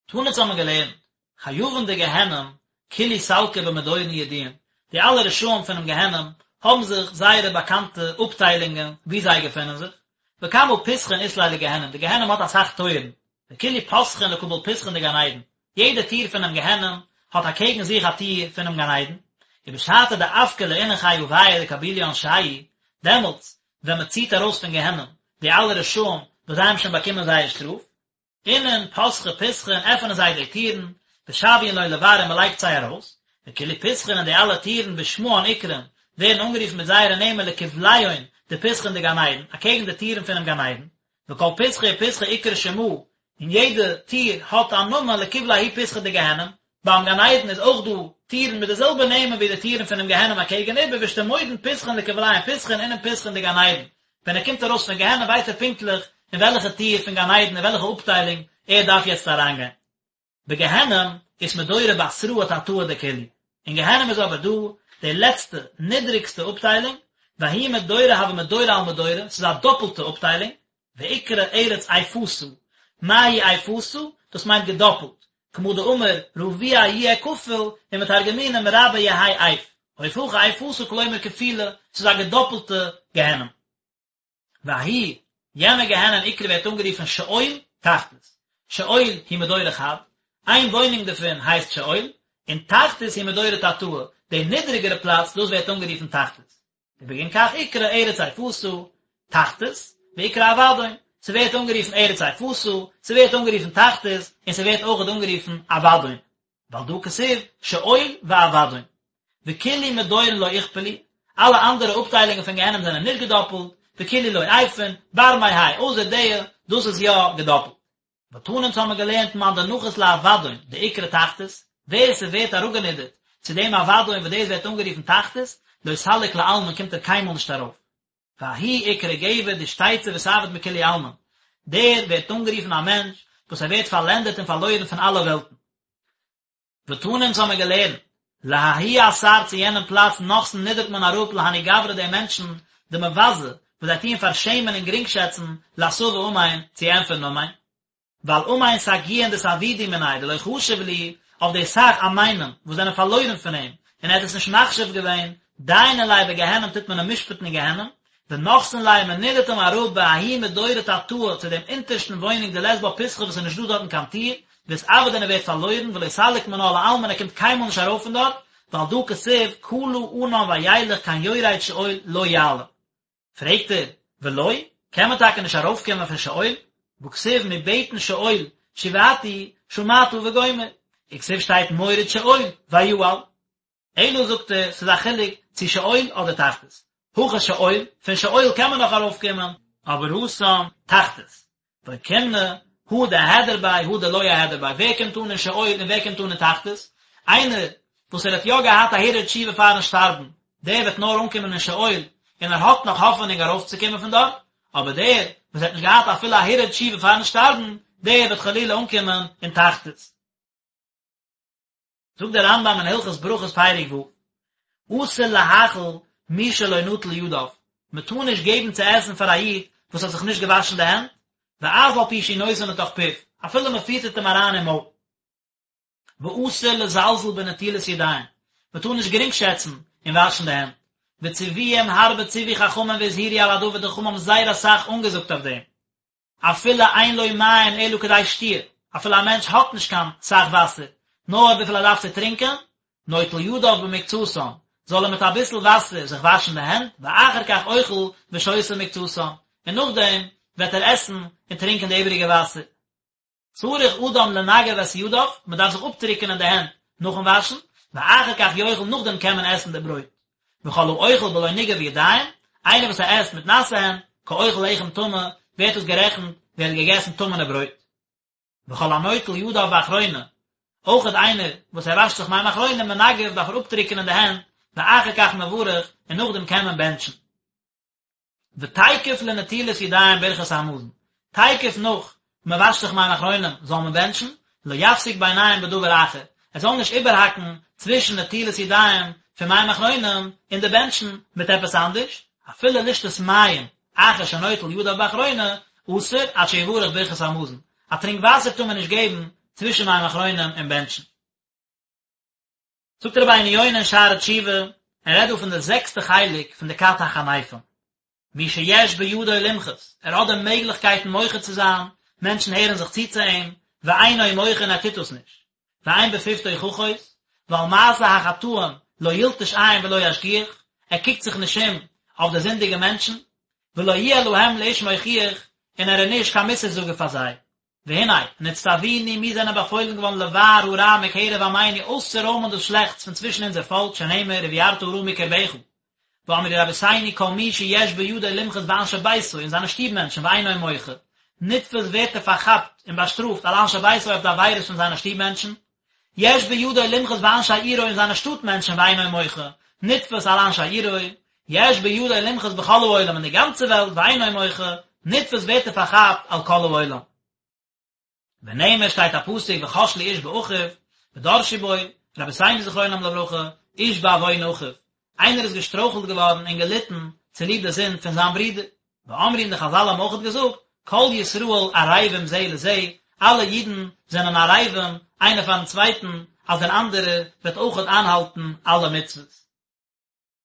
תנא אונז האבן געלערנט, חייבין דגיהנום כולהו סלקי במדורין ידועין, די אלע רשעים פונעם גיהנום האבן זיך זייערע באקאנטע אפטיילונגען וואו זיי געפונען זיך, וכמה פתחין אית ליה לגיהנום, די גיהנום האט אסאך טויערן, וכולהו פתחין לקבל פתחין דגן עדן, יעדע טיר פונעם גיהנום האט אקעגן זיך א טיר פונעם גן עדן, ובשעתא דאפקי לאינון חיויא דקבילו עונשייהו, דעמאלטס ווען מען ציט ארויס פון גיהנום די אלע רשעים וואס זיי האבן שוין באקומען זייער שטראף, אינון פתחי פתחין עפענען זיי די טירן, ושויין לון לבר און מען לייגט זיי ארויס, וכולהו פתחין און די אלע טירן בשמהן אקרון ווערן אנגערופן מיט זייערע נעמען לקבליהון דפתחין דגן עדן, אקעגן די טירן פונעם גן עדן, וכל פתחא ופתחא אקרי שמא, און יעדע טיר האט א נאמען לקבלי ההוא פתחא דגיהנום, ביים גן עדן איז אויך דא טירן מיט די זעלבע נעמען ווי די טירן פונעם גיהנום אקעגן איבער ואשתמודעין פתחין לקבליהון פתחין אינון פתחין דגן עדן, ווען ער קומט ארויס פון גיהנום ווייסט ער פונקטליך אין וועלכע טיר פון גן עדן אין וועלכע אפטיילונג ער דארף יעצט אריינגיין. בגיהנום אית מדורא בתראה תתאה דכולהו, אין גיהנום איז אבער דא די לעצטע נידריגסטע אפטיילונג, וההוא מדורא הוי מדורא על מדורא, ס'איז א דאפלטע אפטיילונג, ואקרי ארץ איפתא, מאי היא איפתא? דאס מיינט געדאפלט, כמה דאמר רביע יהיה כפול, ומתרגמינן מרבע יהי איף, אוף הכא איפתא כלומר כפולה, ס'איז א געדאפלטע גיהנום. וההוא, יענע גיהנום אקרי ווערט אנגערופן שאול תחתית, שאול הוא מדורא חד, איין וואוינונג דערפון הייסט שאול, און תחתית הוא מדורא תתאה, די נידריגערע פלאץ, דאס ווערט אנגערופן תחתית. ובגין כך אקרי ארץ איפתא, תחתית, ואקרי אבדון, ס'ווערט אנגערופן ארץ איפתא, ס'ווערט אנגערופן תחתית, און ס'ווערט אויכעט אנגערופן אבדון. ועל דא כתיב שאול ואבדון. וכולהו מדורין לא אכפלו, אלע אנדערע אפטיילונגען פון גיהנום זענען נישט געדאפלט, וכולהו לא עייפין, בר מהאי, אויסער די, דאס איז יא געדאפלט. ותנא אונז האמיר געלערנט מאן דנחית לאבדון דאקרי תחתית, ווער ס'ווערט אראפגענידערט צו דעם אבדון וואס דאס ווערט אנגערופן תחתית, לא סליק לעלמין קומט ער קיינמאל נישט ארויף. וההוא אקרי גבר דאשתיצי ואתעביד מכולהו עלמין, דער ווערט אנגערופן א מענטש וואס ער ווערט פארלענדערט און פארלוירן פון אלע וועלטן. ותנא אונז האמיר געלערנט, לההוא אתר צו יענעם פלאץ נחתין נידערט מען אראפ להנהו גברי די מענטשן, דמבזי, וואס זיי טוען פארשעמען און גרינגשעצן, לאתבא אמן, צו ענטפערן אמן. ועל אמן סגיאין דאתעבידו מיניה דלא חשיב להו, אויף די סך אמנים וואס זענען פארלוירן פון אים, און ער האט עס נישט מחשיב געווען, דיינין ליה בגיהנום טוט מען אים משפט'ן אין גיהנום, ונחתין ליה מען נידערט אים אראפ בההוא מדורא תתאה צו דעם אונטערשטן וואוינונג דלית בה פתחא וואס איז נישט דא דארטן קיין טיר, ואתעביד און ער ווערט פארלוירן ולא סליק מינה לעלמין ער קומט קיינמאל נישט ארויף פון דארט, ועל דא כתיב כלה ענן וילך כן יורד שאול לא יעלה. פרעגט ער, ולא, קען מען טאקע נישט ארויפקומען פון שאול? והכתיב מבטן שאול שועתי שמעת וגומר, וכתיב שטייט מוריד שאול ויעל. אלא זאגט ער, ס'איז א חילוק צו שאול אדער תחתית. הכא שאול, פון שאול קען מען נאך ארויפקומען, אבער התם תחתית. ואוקימנא, הא דאהדר ביה, הא דלא אהדר ביה, ווער קומט אן אין שאול און ווער קומט אן אין תחתית? איינער וואס ער האט יא געהאט א הרהור תשובה פארן שטארבן, דער וועט נאר אנקומען אין שאול, און ער האט נאך האפענונג ארויפצוקומען פון דארט, אבער דער וואס האט נישט געהאט אפילו א הרהור תשובה פארן שטארבן, דער וועט חלילה אנקומען אין תחתית. זאגט דער רמב"ם אין הלכות ברכות פרק ו', אסור להאכיל מי שלא נטל ידיו, מען טאר נישט געבן צו עסן פאר א איד וואס האט זיך נישט געוואשן די הענט, ואף על פי שהוא נותן לתוך פיו, אפילו מען פיטערט אים אריין אין מויל. ואסור לזלזל בנטילת ידיים, מען טאר נישט גרינגשעצן אין וואשן די הענט, וציוויים הרבה ציוו חכמים והזהירו על הדבר, די חכמים האבן זייער אסאך אנגעזאגט אויף דעם. אפילו אין לו מים אלא כדי שתיה, אפילו א מענטש האט נישט קיין סך וואסער, נאר וויפיל ער דארף צו טרינקען, נוטל ידיו במקצתן, זאל ער מיט אביסל וואסער זיך וואשן די הענט, ואחר כך אוכל ושותה מקצתן, און נאכדעם וועט ער עסן און טרינקען די איבעריגע וואסער. צריך אדם לנגב את ידיו, מען דארף זיך אפטריקענען די הענט נאכן וואשן, ואחר כך יאכל נאכדעם קען מען עסן די ברויט. וכל האוכל בלא ניגוב ידיים, איינער וואס ער עסט מיט נאסע הענט, כאוכל לחם טמא, ווערט עס גערעכנט ווי ער האט געגעסן טמא'נע ברויט. וכל הנוטל ידיו באחרונה, אויכעט איינער וואס ער וואשט זיך מים אחרונים מנגב דארף ער אפטריקענען די הענט, ואחר כך מברך, און נאכדעם קען מען בענטשן. ותיכף לנטילת ידיים ברכת המזון, תיכף נאך מען וואשט זיך מים אחרונים זאל מען בענטשן, לא יפסיק ביניהם בדבר אחר, ער זאל נישט איבערהאקן צווישן נטילת ידיים פון מים אחרונים און די בענטשן מיט עפעס אנדערש, אפילו לשתות מים אחר שנוטל ידיו באחרונה, אסור עד שיברך ברכת המזון, א טרינק וואסער טאר מען נישט געבן צווישן מים אחרונים און בענטשן. זאגט רבינו יונה אין שערי תשובה, ער רעדט דא פון די זעקסטע חלק פון די כת החניפים, מי שיש בידו למחות, ער האט די מעגליכקייטן מוחה צו זיין, מענטשן הערן זיך צו צו אים, ואינו מוחה און ער טוט דאס נישט, ואין בפיו תוכחות, ועל מעשה החטאים לא ילטוש עין ולא ישגיח, ער קוקט זיך נישט אום אויף די זינדיגע מענטשן, ולא יהיה להם לאיש מוכיח, און ער איז נישט קיין מוסר זאגער פאר זיי. והנה, נצטווינו, מיר זענען באפוילן געווארן לבער הרע מקרב עמינו אויסצורוימען דאס שלעכטס פון צווישן אונזער פאלק שנאמר ובערת הרע מקרבך. ואמרו רבותינו כל מי שיש בידו למחות באנשי ביתו אין זיינע שטוב מענטשן ואינו מוחה, נתפס ווערט ער פארכאפט און באשטראפט על אנשי ביתו אויף די עבירות פון זיינע שטוב מענטשן, יש בידו למחות באנשי עירו אין זיינע שטאט מענטשן ואינו מוחה, נתפס על אנשי עירו, יש בידו למחות בכל העולם אין די גאנצע וועלט ואינו מוחה, נתפס ווערט ער פארכאפט על כל העולם. ונאמר שטייט א פסוק וכשלו איש באחיו, ודרשו בו, רבותינו זכרונם לברכה, איש בעוון אחיו, איינער איז געשטרויכלט געווארן און געליטן צוליב די זינד פון זיין ברודער, ואמרו און די חזל האבן אויכעט געזאגט, כל ישראל ערבים זה לזה, אלע אידן זענען ערבים איינער פארן צווייטן, אז דער אנדערער וועט אויכעט איינהאלטן אלע מצוות.